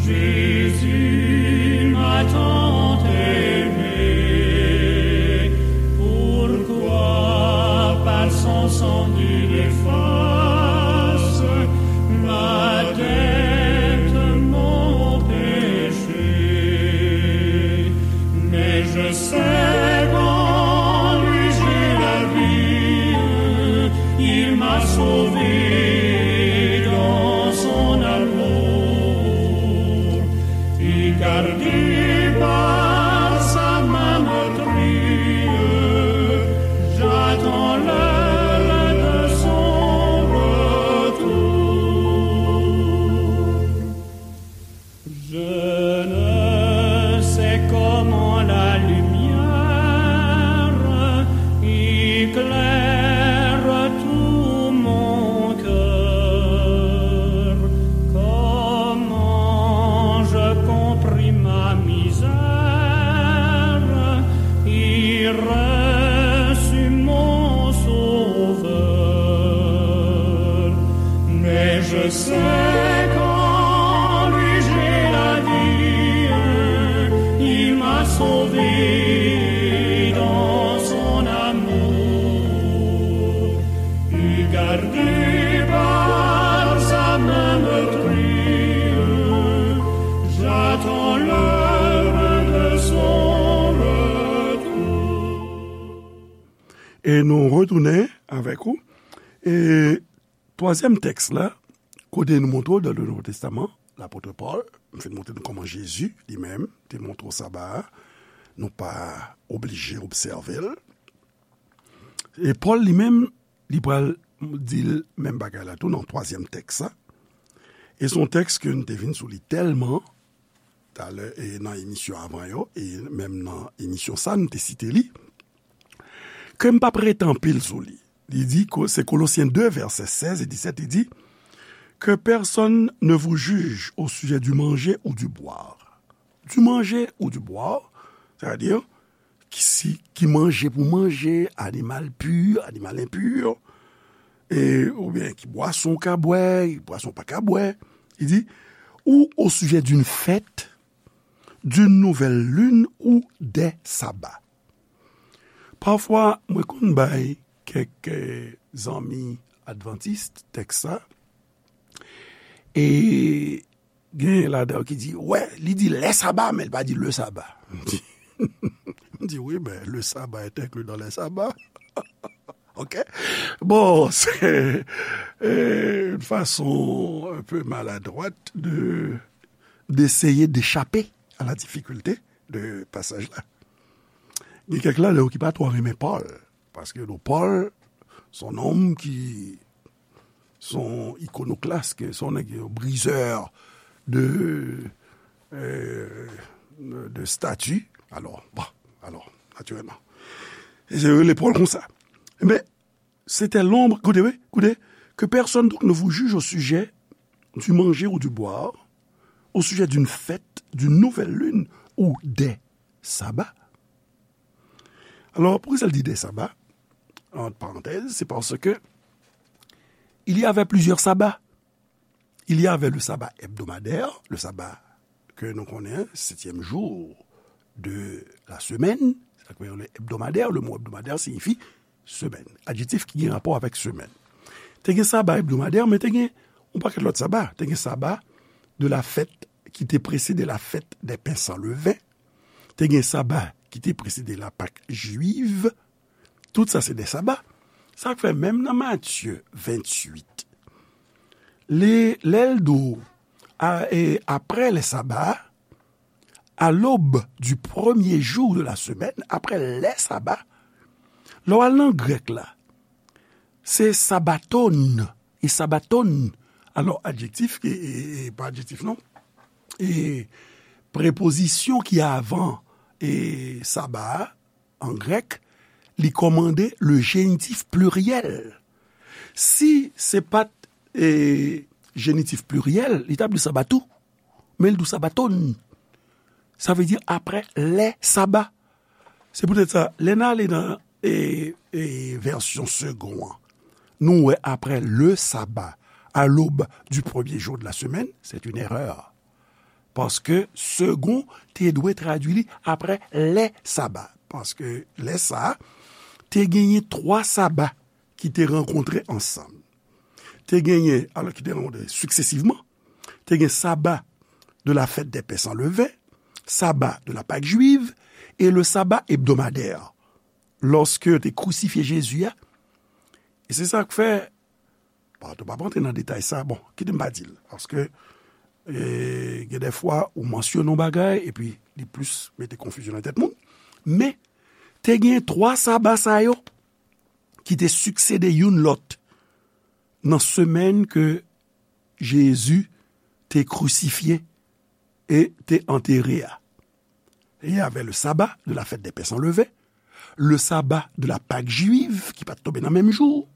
Jésus m'a tant aimé. Pourquoi par son sang il efface ma dette, mon péché. Mais je sais qu'en lui j'ai la vie, il m'a sauvé dans son amour. Et gardé par sa main meurtrie, j'attends l'heure de son retour. Je ne sais comment la lumière éclaire tout mon cœur, comment je comprime ma misère et reçu mon Sauveur. Mais je sais qu'en lui j'ai la vie, il m'a sauvé dans son amour. Et gardé par sa main meurtrie, j'attends l'heure de son retour. E nou retounen avèk ou. E twazyèm tèks la, kote nou montre w dan le Nouveau Testament, lapot Pòl, m fin montre nou kòman Jezi li menm te montre w saba a, nou pa oblije obsève l. E Pòl li menm, li pral di l menm bagay la tou nan twazyèm tèks sa. E se yon tèks ke n te vin sou li tèlman talè, e nan emisyon avan yo, e menm nan emisyon sa, n te site li, ke m p ap rete anpil sou li. Li di, ko-, se Kolosyen de, vèsè sèz e disèt, li di, Que personne ne vous juge au sujet du manger ou du boire. Du manger ou du boire, c'est-à-dire, ki si, ki manje pou manje, animal pur, animal impur, e, oubyen ki bwason w ka bwè, ki bwason w pa ka bwè. Li di, ou au sujet d'une fête, d'une nouvelle lune ou des sabbats. Pafwa, mwen konn bay kèk, eh, zanmi advantis tèks sa, e gen ladan yo ki di, wè, li di lè saba, men li pa di le saba. M di, m di, wi, men le saba est inclus dans les sabbats. Ok? Bon, c'est, euh, une façon un peu maladroite de, d'essayer d'échapper à la difficulté de passage-là. Gen kèk ladan yo ki pa twò renmen Pòl, paske nou, Pòl, se yon nonm ki, se yon ikonoklas, se yon nèg, yon briseur de, euh, de statues. Alò, bon, alò, natirèlman. E se rele Pòl konsa. Men, c'était l'ombre, écoutez, oui, écoutez, que personne donc ne vous juge au sujet du manger ou du boire, au sujet d'une fête, d'une nouvelle lune ou des sabbats. Alors, pourquoi ça le dit des sabbats ? Entre parenthèses, c'est parce que il y avait plusieurs sabbats. Il y avait le sabbat hebdomadaire, le sabbat que nous connaissons, septième jour de la semaine, c'est-à-dire le hebdomadaire, le mot hebdomadaire signifie semaine, adjektif ki gen rapò avèk semèn. Te gen saba ebdomadè, men te gen yon pakèt lòt saba. Te gen saba de la fête qui te précédait la fête des pains sans levain. Te gen saba ki te presede la Pak jwiv. Tout sa se de saba. Sa k fè menm nan Matye venntuit, lè, lè l di w, a, e, après les sabbats, à l'aube du premier jour de la semaine, après les sabbats, lè w al nan grèk la, se sabaton, e sabaton, alò, adjektif, e, e, e, pa adjektif non, e prepozisyon ki avan e saba a, an grèk, li kòmande le génitif pluriel. Si se pa t, e, génitif pluriel, li t ap di sabatou, men l di w sabaton. Sa vle di après les sabbats. Se poutèt sa, lè n ale nan, e, e, vèsyon Segond an, nou wè après le sabbat, à l'aube du premier jour de la semaine, c'est une erreur. Paske Segond te dwe tradui li après les sabbats. Paske lè sa a, te genyen twa saba ki te rankontre ansanm. Te genyen, alò, ki te rankontre siksesivman, te gen saba de la fête des pains sans levain, saba de la Pâque juive, e le sabbat hebdomadaire, lòske yo te krisifye Jezi a. E se sa k fè, bon, nou p ap rantre nan detay sa, bon, kite m pa di l, paske, e, gen de fwa ou mansyone yon bagay, epi li plis mete konfizyon nan tèt moun. Men, te gen twa saba sa yo ki te siksede youn lòt nan semèn ke Jezi te krisifye e te antere a. Il y avait le sabbat de la fête des pains sans levain, le sabbat de la Pâque juive, ki pa t tonbe nan menm jou,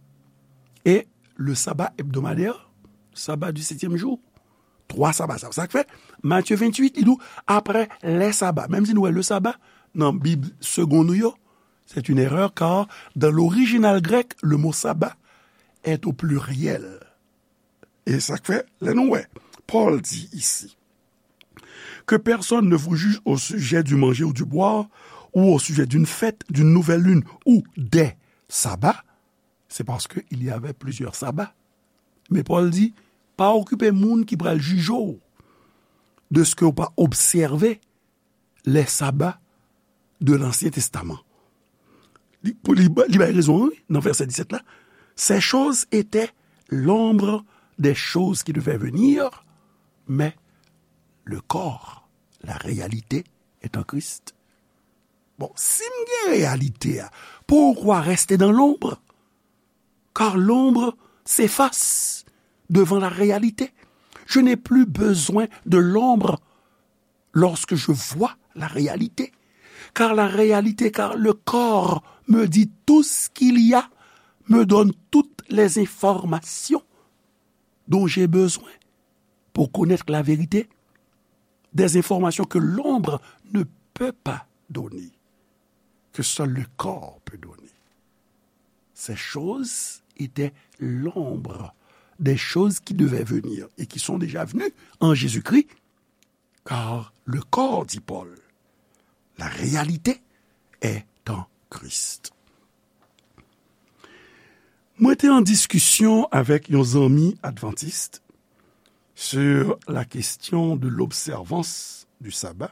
e le sabbat hebdomadaire, sabbat du septième jour. Twa saba sa. Sa k fè, Matye venntuit, li di w, après les sabbats. Menm si nou wè le sabbat, nan Bib Segond nou yo, c'est une erreur, car dans l'original grec, le mot sabbat est au pluriel. E sa k fè, lè nou wè, Pòl di isi, que personne ne vous juge au sujet du manger ou du boire, ou au sujet d'une fête, d'une nouvelle lune, ou des sabbats, c'est parce qu'il y avait plusieurs sabbats. Men Pòl di, pa okipe moun ki pral jije w de ce que w pa obsève les sabbats de l'Ancien Testament. Li, pou li, li bay rezon, wi, nan vèsè disèt la. Ces choses étaient l'ombre des choses qui devaient venir, mais le corps, la réalité, est en Christ. Bon, si m gen reyalite a, pourquoi rester dans l'ombre ? Car l'ombre s'efface devant la réalité. Je n'ai plus besoin de l'ombre lorsque je vois la réalité. Car la réalité, car le corps me dit tout ce qu'il y a, me donne toutes les informations dont j'ai besoin pour connaître la vérité, des informations que l'ombre ne peut pas donner, que seul le corps peut donner. Ces choses étaient l'ombre des choses qui devaient venir et qui sont déjà venues en Jésus-Christ, car le corps, dit Paul, la réalité est en Christ. Mwen te an diskisyon avèk yon zanmi advantis sur la question de l'observance du sabbat.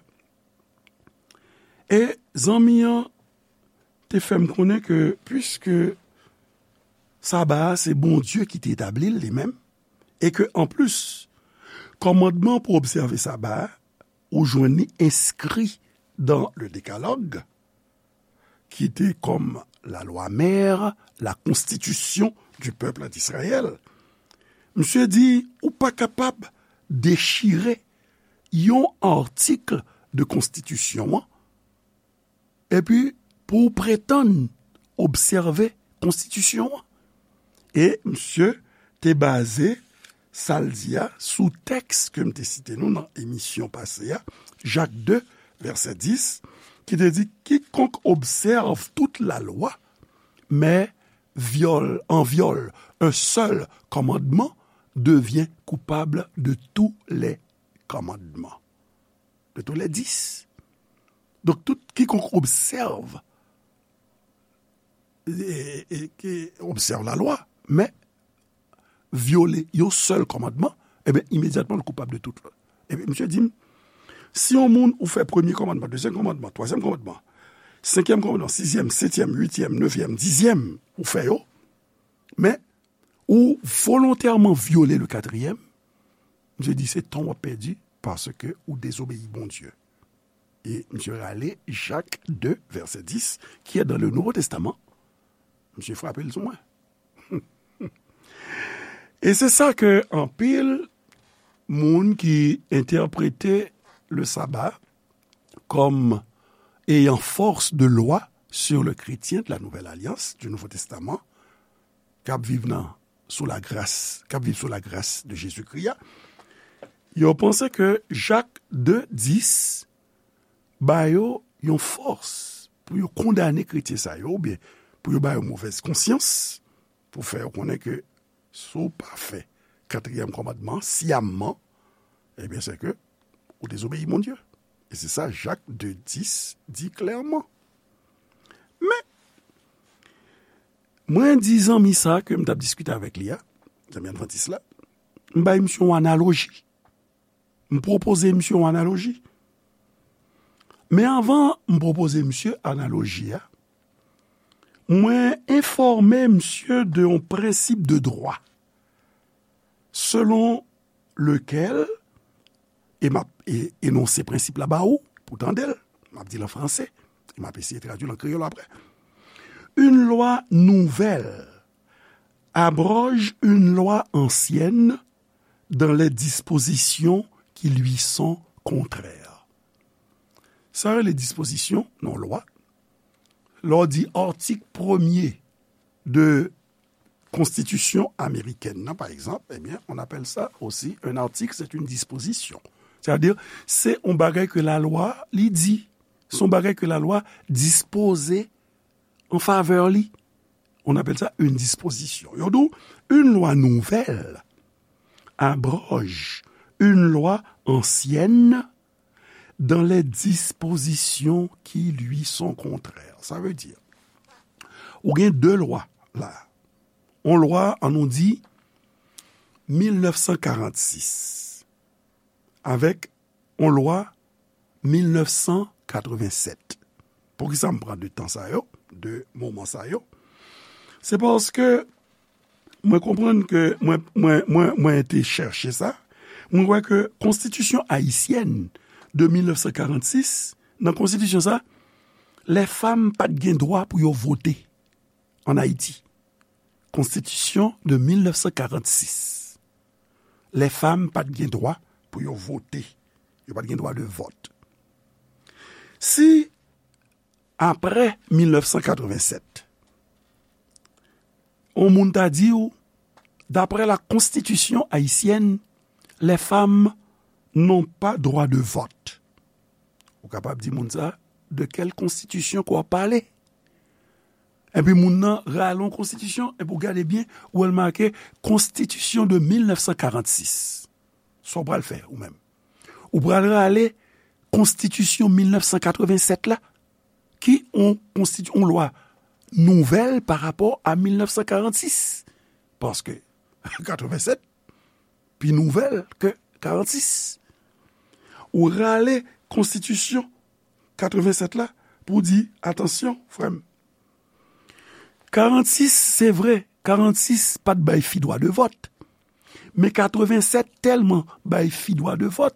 E zanmi an te fè m konnen ke, piske saba a se Bondye ki te etabli l li menm, e ke, anplis, kòmandman pou obsève saba a, ou jwenn li enskri dans le Décalogue, ki te comme la loi mère, la constitution du peuple d'Israël. Misye di, ou pa kapab dechire yon atik de konstitisyon an, epi pou w pretann obsève konstitisyon an. E misye te baze sa l di a sou tèks ke m te site nou nan emisyon pase a, Jak de, vèsè dis, ki te di, quiconque observe toute la loi, mais viole, en viole un seul commandement, devient coupable de tous les commandements. De tous les dix. Donk, tout quiconque observe, e, e, ki obsève la lwa, men vyole yon sèl kòmandman, ebyen, imedyatman, l koupab de tout lòt. Ebyen, misye di m, si yon moun ou fè premye kòmandman, dezyèm kòmandman, twazyèm kòmandman, senkyèm kòmandman, sizyèm, setyèm, uityèm, nevyèm, dizyèm, ou fè yo, men ou volontèman vyole le katriyèm, misye di se tan w ap pèdi paske ou dezobeyi Bondye. E misye rale Jak de, vèsè dis, qui est dans le Nouveau Testament. Misye frape l sou mwen. E se sa ke anpil moun ki entèprete le sabbat comme ayant force de loi sur le chrétien de la Nouvelle Alliance, du Nouveau Testament, k ap viv nan, sou lagras, k ap viv sou lagras de Jezikri a, yo panse ke Jak de dis ba yo yon fòs pou yo kondane kretyen sa yo, oubyen pou yo ba yo movèz konsyans, pou fè yo konnen ke si w pa fè katriyèm kòmandman an siyamman, ebyen, se ke ou dezobeyi Bondye. E se sa Jak de dis di klèman. Men, mwen di zanmi sa ke m t ap diskite avèk li a, zanmi advantis la, m bay misye yon analoji. M pwopoze misye yon analoji. Men anvan m pwopoze misye analoji a, mwen enfòme misye de yon prensip de dwa selon lequel, e m ap e, enonse prensip la ba ou, pou tande l, m ap di l an franse, e m ap eseye tradui l an kreyòl apre. Une loi nouvelle abroge une loi ancienne dans les dispositions qui lui sont contraires. Sa rele dispozisyon nan lwa. Lè w di atik premye de konstitisyon amerikèn nan, pa egzanp, ebyen, on appelle ça aussi un article, c'est une disposition. Sètadi, se yon bagay ke lalwa, li di. Se yon bagay ke lalwa dispoze an favè li. On appelle ça une disposition. Yo di w, une loi nouvelle abroge une loi ancienne dans les dispositions qui lui sont contraires. Sa vle di, ou gen de lwa la. On lwa, ann nou di, mil nèf san karannsis, avèk on lwa mil nèf san katrevennsèt. Poukisa m pran de tan sa yo, de moman sa yo? Se paske mwen konprann ke mwen, mwen, mwen, mwen te chèche sa. Mwen wè ke konstitisyon ayisyèn de mil nèf san karannsis, nan konstitisyon sa, lè fanm pa t gen dwa pou yo vote ann Ayiti. Konstitisyon de mil nèf san karannsis. Lè fanm pa t gen dwa pou yo vote. Yo pa t gen dwa de vòt. Si, apre mil nèf san katrevennsèt, yon moun ta di w, d'après la constitution haïtienne, les femmes n'ont pas droit de vote. Ou kapab di moun sa, de quelle constitution ke w ap pale? Epi moun nan rale yon konstitisyon, epi w gade byen, ou wè l make Constitution de mil nèf san karannsis. Sa w pral fè, ou menm? Ou pral rale konstitisyon mil nèf san katrevennsèt la, ki yon konstiti-, yon lwa nouvèl pa rapò a mil nèf san karannsis. Paske katrevennsèt pi nouvèl ke karannsis. Ou rale konstitisyon katrevennsèt la pou di, atansyon, frè m. Karannsis, se vre, karannsis pa t bay fi dwa de vòt. Men katrevennsèt tèlman bay fi dwa de vòt,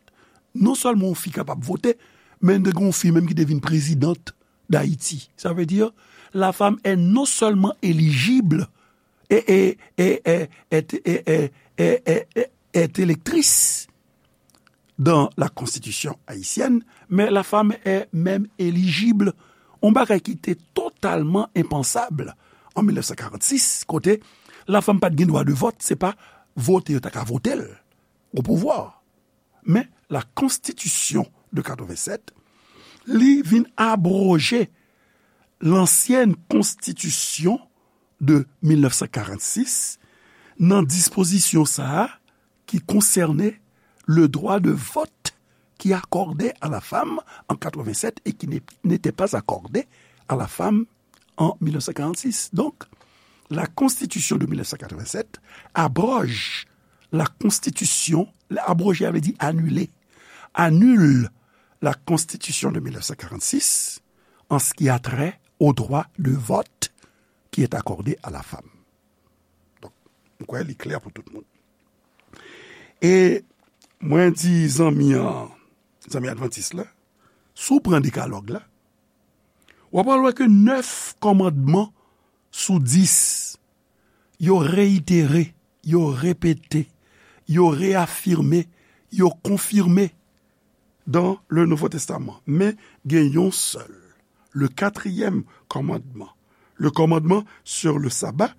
Non sèlman yon fi kapab vote, men te gen yon fi menm ki te vin présidente d'Haïti. Ça veut dire, la femme est non seulement éligible et, et, et, et, et, et, et, et, et, et électrice dans la constitution haïtienne, mais la femme est même éligible. Yon bagay ki te totalman enpansab an mil nèf san karannsis, kote la femme pa t gen dwa de vòt, se pa vote yo ta ka vote l o pouvwa. Men, la Constitution de quatre-vingt-sept, li vin abroje lansyen konstitisyon de mil nèf san karannsis nan dispozisyon sa a ki konsène le droit de vote qui accordait à la femme en quatre-vingt-sept et qui n'est- n'était pas accordé à la femme en mil nèf san karannsis. Donc, la Constitution de mil nèf san karannsis abroge la Constitution, abroger, ça veut dire annuler, annule la Constitution de mil nèf san karannsis en ce qui a trait au droit de vote qui est accordé à la femme. Donk, m kwè li klè pou tout moun. E mwen di zanmi an, zanmi advantis la, si w pran dekalòg la, w ap wè ke nèf kòmandman sou dis, yo reyitere, yo repete, yo reyafime, yo konfime dans le Nouveau Testament. Men gen yon sèl, le quatrième commandement, le commandement sur le sabbat.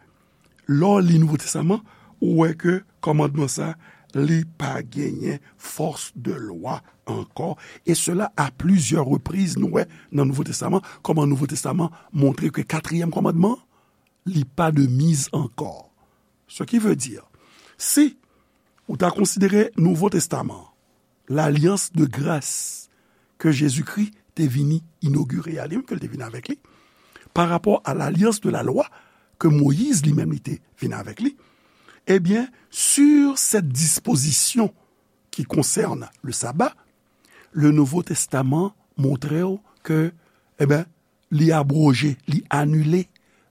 Lè w li Nouvo Testaman, ou wè ke kòmandman sa, li pa genyen fòs de lwa ankò. E sela a plizyè repriz, nou wè nan Nouvo Testaman, kòman Nouvo Testaman montre ke katriyèm kòmandman, li pa de mise encore. Ce qui veut dire, si ou ta konsidere Nouvo Testaman, lalyans de gras ke Jezikri te vini inogire a, li menm ke l te vini avèk li, pa rapò a lalyans de la lwa ke Moyiz li menm li te vini avèk li, ebyen, sur cette disposition qui concerne le sabbat, le Nouveau Testament montre w ke, ebyen, li abwoje, li anile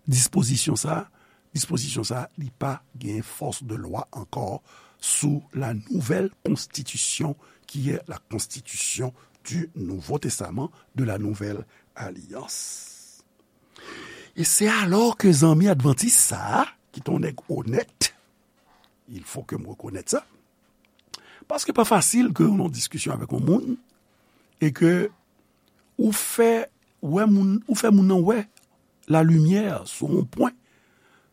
dispozisyon sa a. Dispozisyon sa a, li pa gen fòs de lwa ankò sou la nouvelle constitution qui est la constitution du Nouveau Testament, de la Nouvelle Alliance. E se alò ke zanmi advantis sa a, ki t on nèg onèt, il faut que m rekonèt sa, paske pa fasil ke w nan diskisyon avèk yon moun e ke ou fè wè moun, ou fè moun nan wè lalimyè sou yon pwen,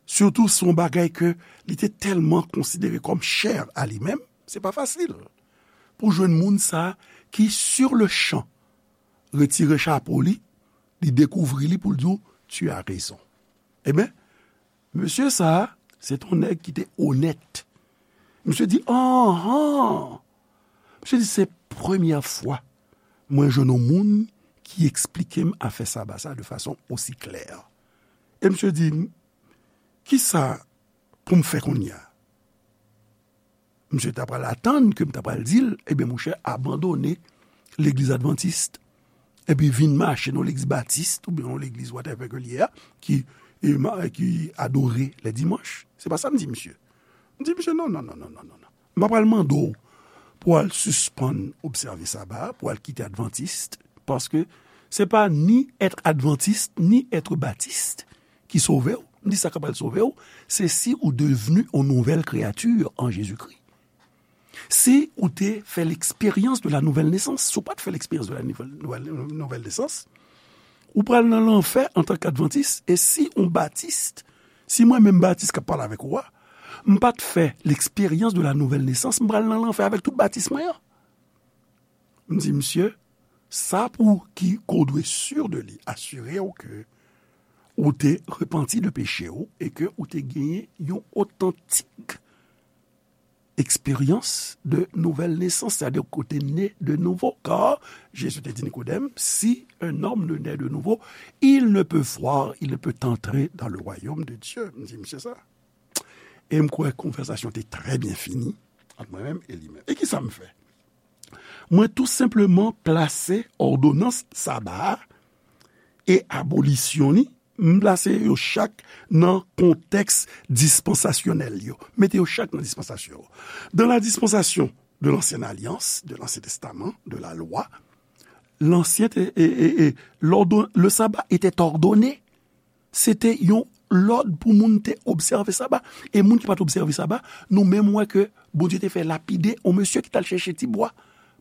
sitou sou yon bagay ke li te tèlman konsidere kòm chè a li menm, se pa fasil pou jwenn moun sa ki, sur le champ, retire chapo li, li dekouvri li pou l di w, tu as raison. Ebyen, mesye sa a, se t on nèg ki te onèt. Misye di, anhan! Misye di, se premyè fwa mwen jwenn yon moun ki eksplike m afè saba sa de fason osi klè. E misye di, kisa pou m fè kounye a? Misye ta pral atann ke m ta pral di l, ebyen, monchè, abandone legliz advantis, epi vin mache nan legliz batis, oubyen nan legliz whatever ke l ye a, ki, e, ma- ki adore lè dimanch. Se pa sa m di misye. M di misye, non, non, non, non, non, non, non. M pa pral mande w pou w al sispann obsève saba a, pou w al kite advantis, paske se pa ni être adventiste, ni être baptiste ki sove w. M di sa k ap pral sove w, se si ou devni yon nouvèl kreyati an Jezikri. Si ou te fè l'expérience de la nouvelle naissance, si ou pa t fè l'expérience de la nouvelle, nouvelle, nouvelle naissance, ou pral nan lanfè antanke advantis, e si yon batis, si mwen menm batis k ap pale avèk ou a, m pa t fè l'expérience de la nouvelle naissance, m pral nan lanfè avèk tout batis mwen an. M di, misye, sa pou ki ke w dwe sûr de li, asire w ke ou te repanti de peche w e ke ou te genyen yon otantik expérience de nouvelle naissance, c'est-à-dire que tu es né de nouveau. Car Jésus te di Nikodèm, si un homme ne naît de nouveau, il ne peut voir, il ne peut entrer dans le royaume de Dieu. M di, misye sa. E m kwè konvèsasyon te trè byen fini ant mwen menm e li menm. E kisa m fè? Mwen tou senpleman plase òdonans saba a e abolisyon li, m plase yo chak nan kontèks dispansasyonèl yo. Mete yo chak nan dispansasyon yo. Dans la dispensation de l'ancienne alliance, de l'Ancien Testament, de la loi, l'ancien, e, e, e, l'ordon-, le sabbat était ordonné. Se te yon lòd pou moun te obsève saba. E moun ki pa t obsève saba, nou menm wè ke Bondye te fè lapide yon mesye ki t al chèche ti bwa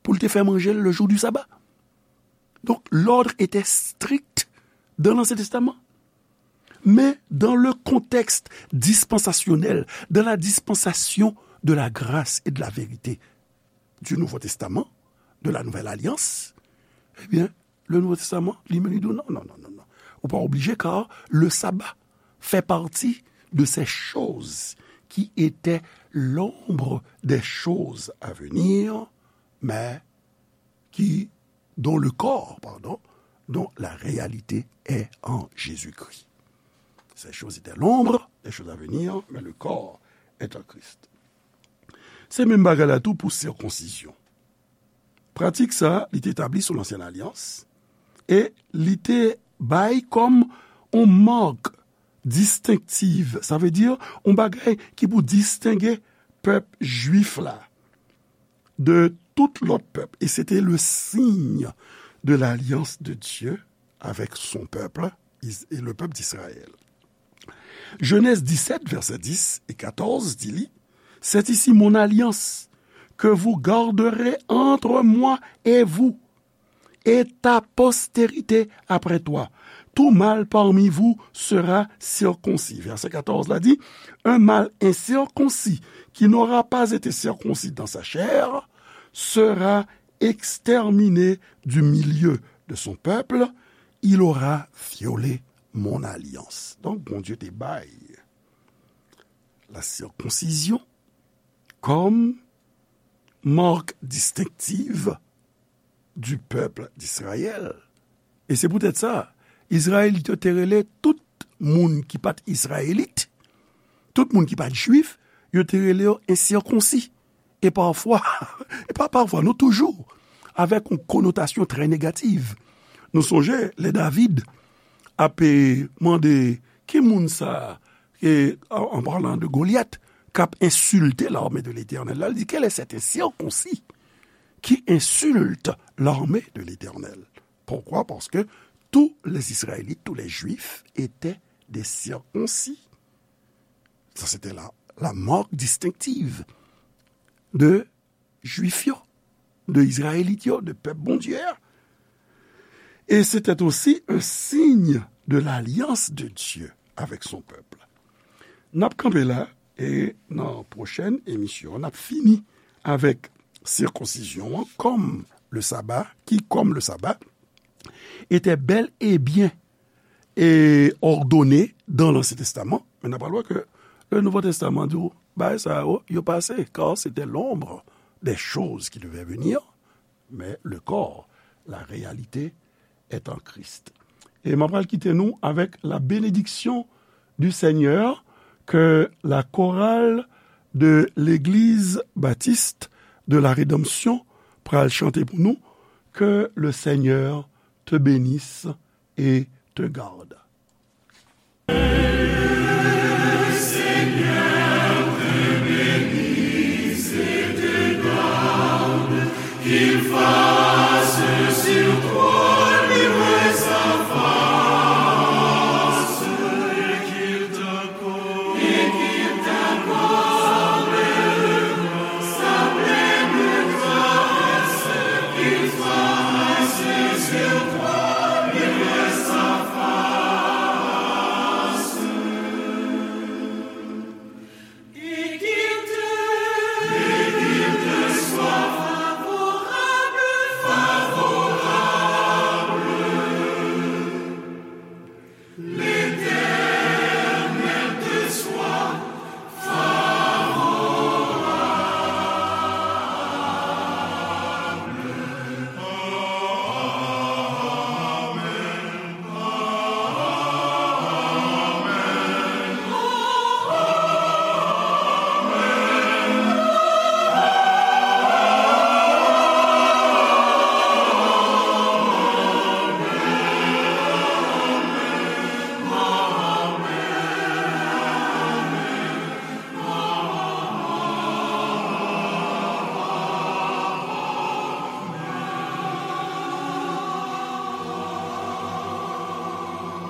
pou l te fè manje l le jour du sabbat. Donc, l'ordre était strict dans l'Ancien Testament. Mais dans le contexte dispensasyonèl, dans la dispensation de la grâce et de la vérité du Nouveau Testament, de la Nouvelle Alliance, eh bien, le Nouveau Testament, li menm, li di w, non, non, non, non, non. Ou pa oblije, car le sabbat fait partie de ces choses qui étaient l'ombre des choses à venir, mais qui, dont le corps, pardon, dont la réalité est en Jésus-Christ. Ces choses étaient l'ombre des choses à venir, mais le corps est en Christ. Se menm bagay la tou pou sikonsizyon. Pratik sa, li te etabli sou Lansyen Alyans e li te bay kòm yon mak distenktiv, sa vle di yon bagay ki pou distenge pèp jwif la de tout lòt pèp. E se te le signe de l'alliance de Dieu avec son peuple, Is-, et le peuple d'Israël. Genèse dix-sept, versets dix et quatorze, di li, c'est ici mon alliance que vous garderez entre moi et vous, et ta postérité après toi. Tout mâle parmi vous sera circoncis. Verset quatorze la di, un mâle incirconcis qui n'aura pas été circoncis dans sa chair sera exterminé du milieu de son peuple, il aura violé mon alliance. Donk, Bondye te bay la circoncision comme marque distinctive du peuple d'Israël. E se poutèt sa, Izrayelit yo te rele tout moun ki pa t Izrayelit, tout moun ki pa t Jwif, yo te rele yo ensikonsi. E pafwa, e pa pafwa, non, toujou, avèk yon konotasyon trè negativ. Nou sonje, lè David ap, e, mande, ki moun sa, e, an, an palan de Golyat, k ap ensilte lame de Letènèl la, li di, quel est cet incirconcis qui insulte l'armée de l'Éternel? Pourquoi? Parce que tous les Israélites, tous les Juifs étaient des circoncis. Ça, c'était la, la marque distinctive de Jwif yo, de Izrayelit yo, de pèp Bondye a. Et c'était aussi un signe de l'alliance de Dieu avec son peuple. N ap kanpe la, e nan pwochèn emisyon, n ap fini avèk sikonsizyon an kòm le saba, qui, comme le sabbat, était bel et bien, e, ordonné dans l'Ancien Testament. Men n ap pral wè ke le Nouveau Testament di w, bagay sa yo, yo pase, car c'était l'ombre des choses qui devaient venir, mais le corps, la réalité, est en Christ. E m ap pral kite nou avèk la bénédiction du Seigneur que la chorale de l'Église baptiste de la Rédemption pral chante pou nou, que le Seigneur te bénisse et te garde.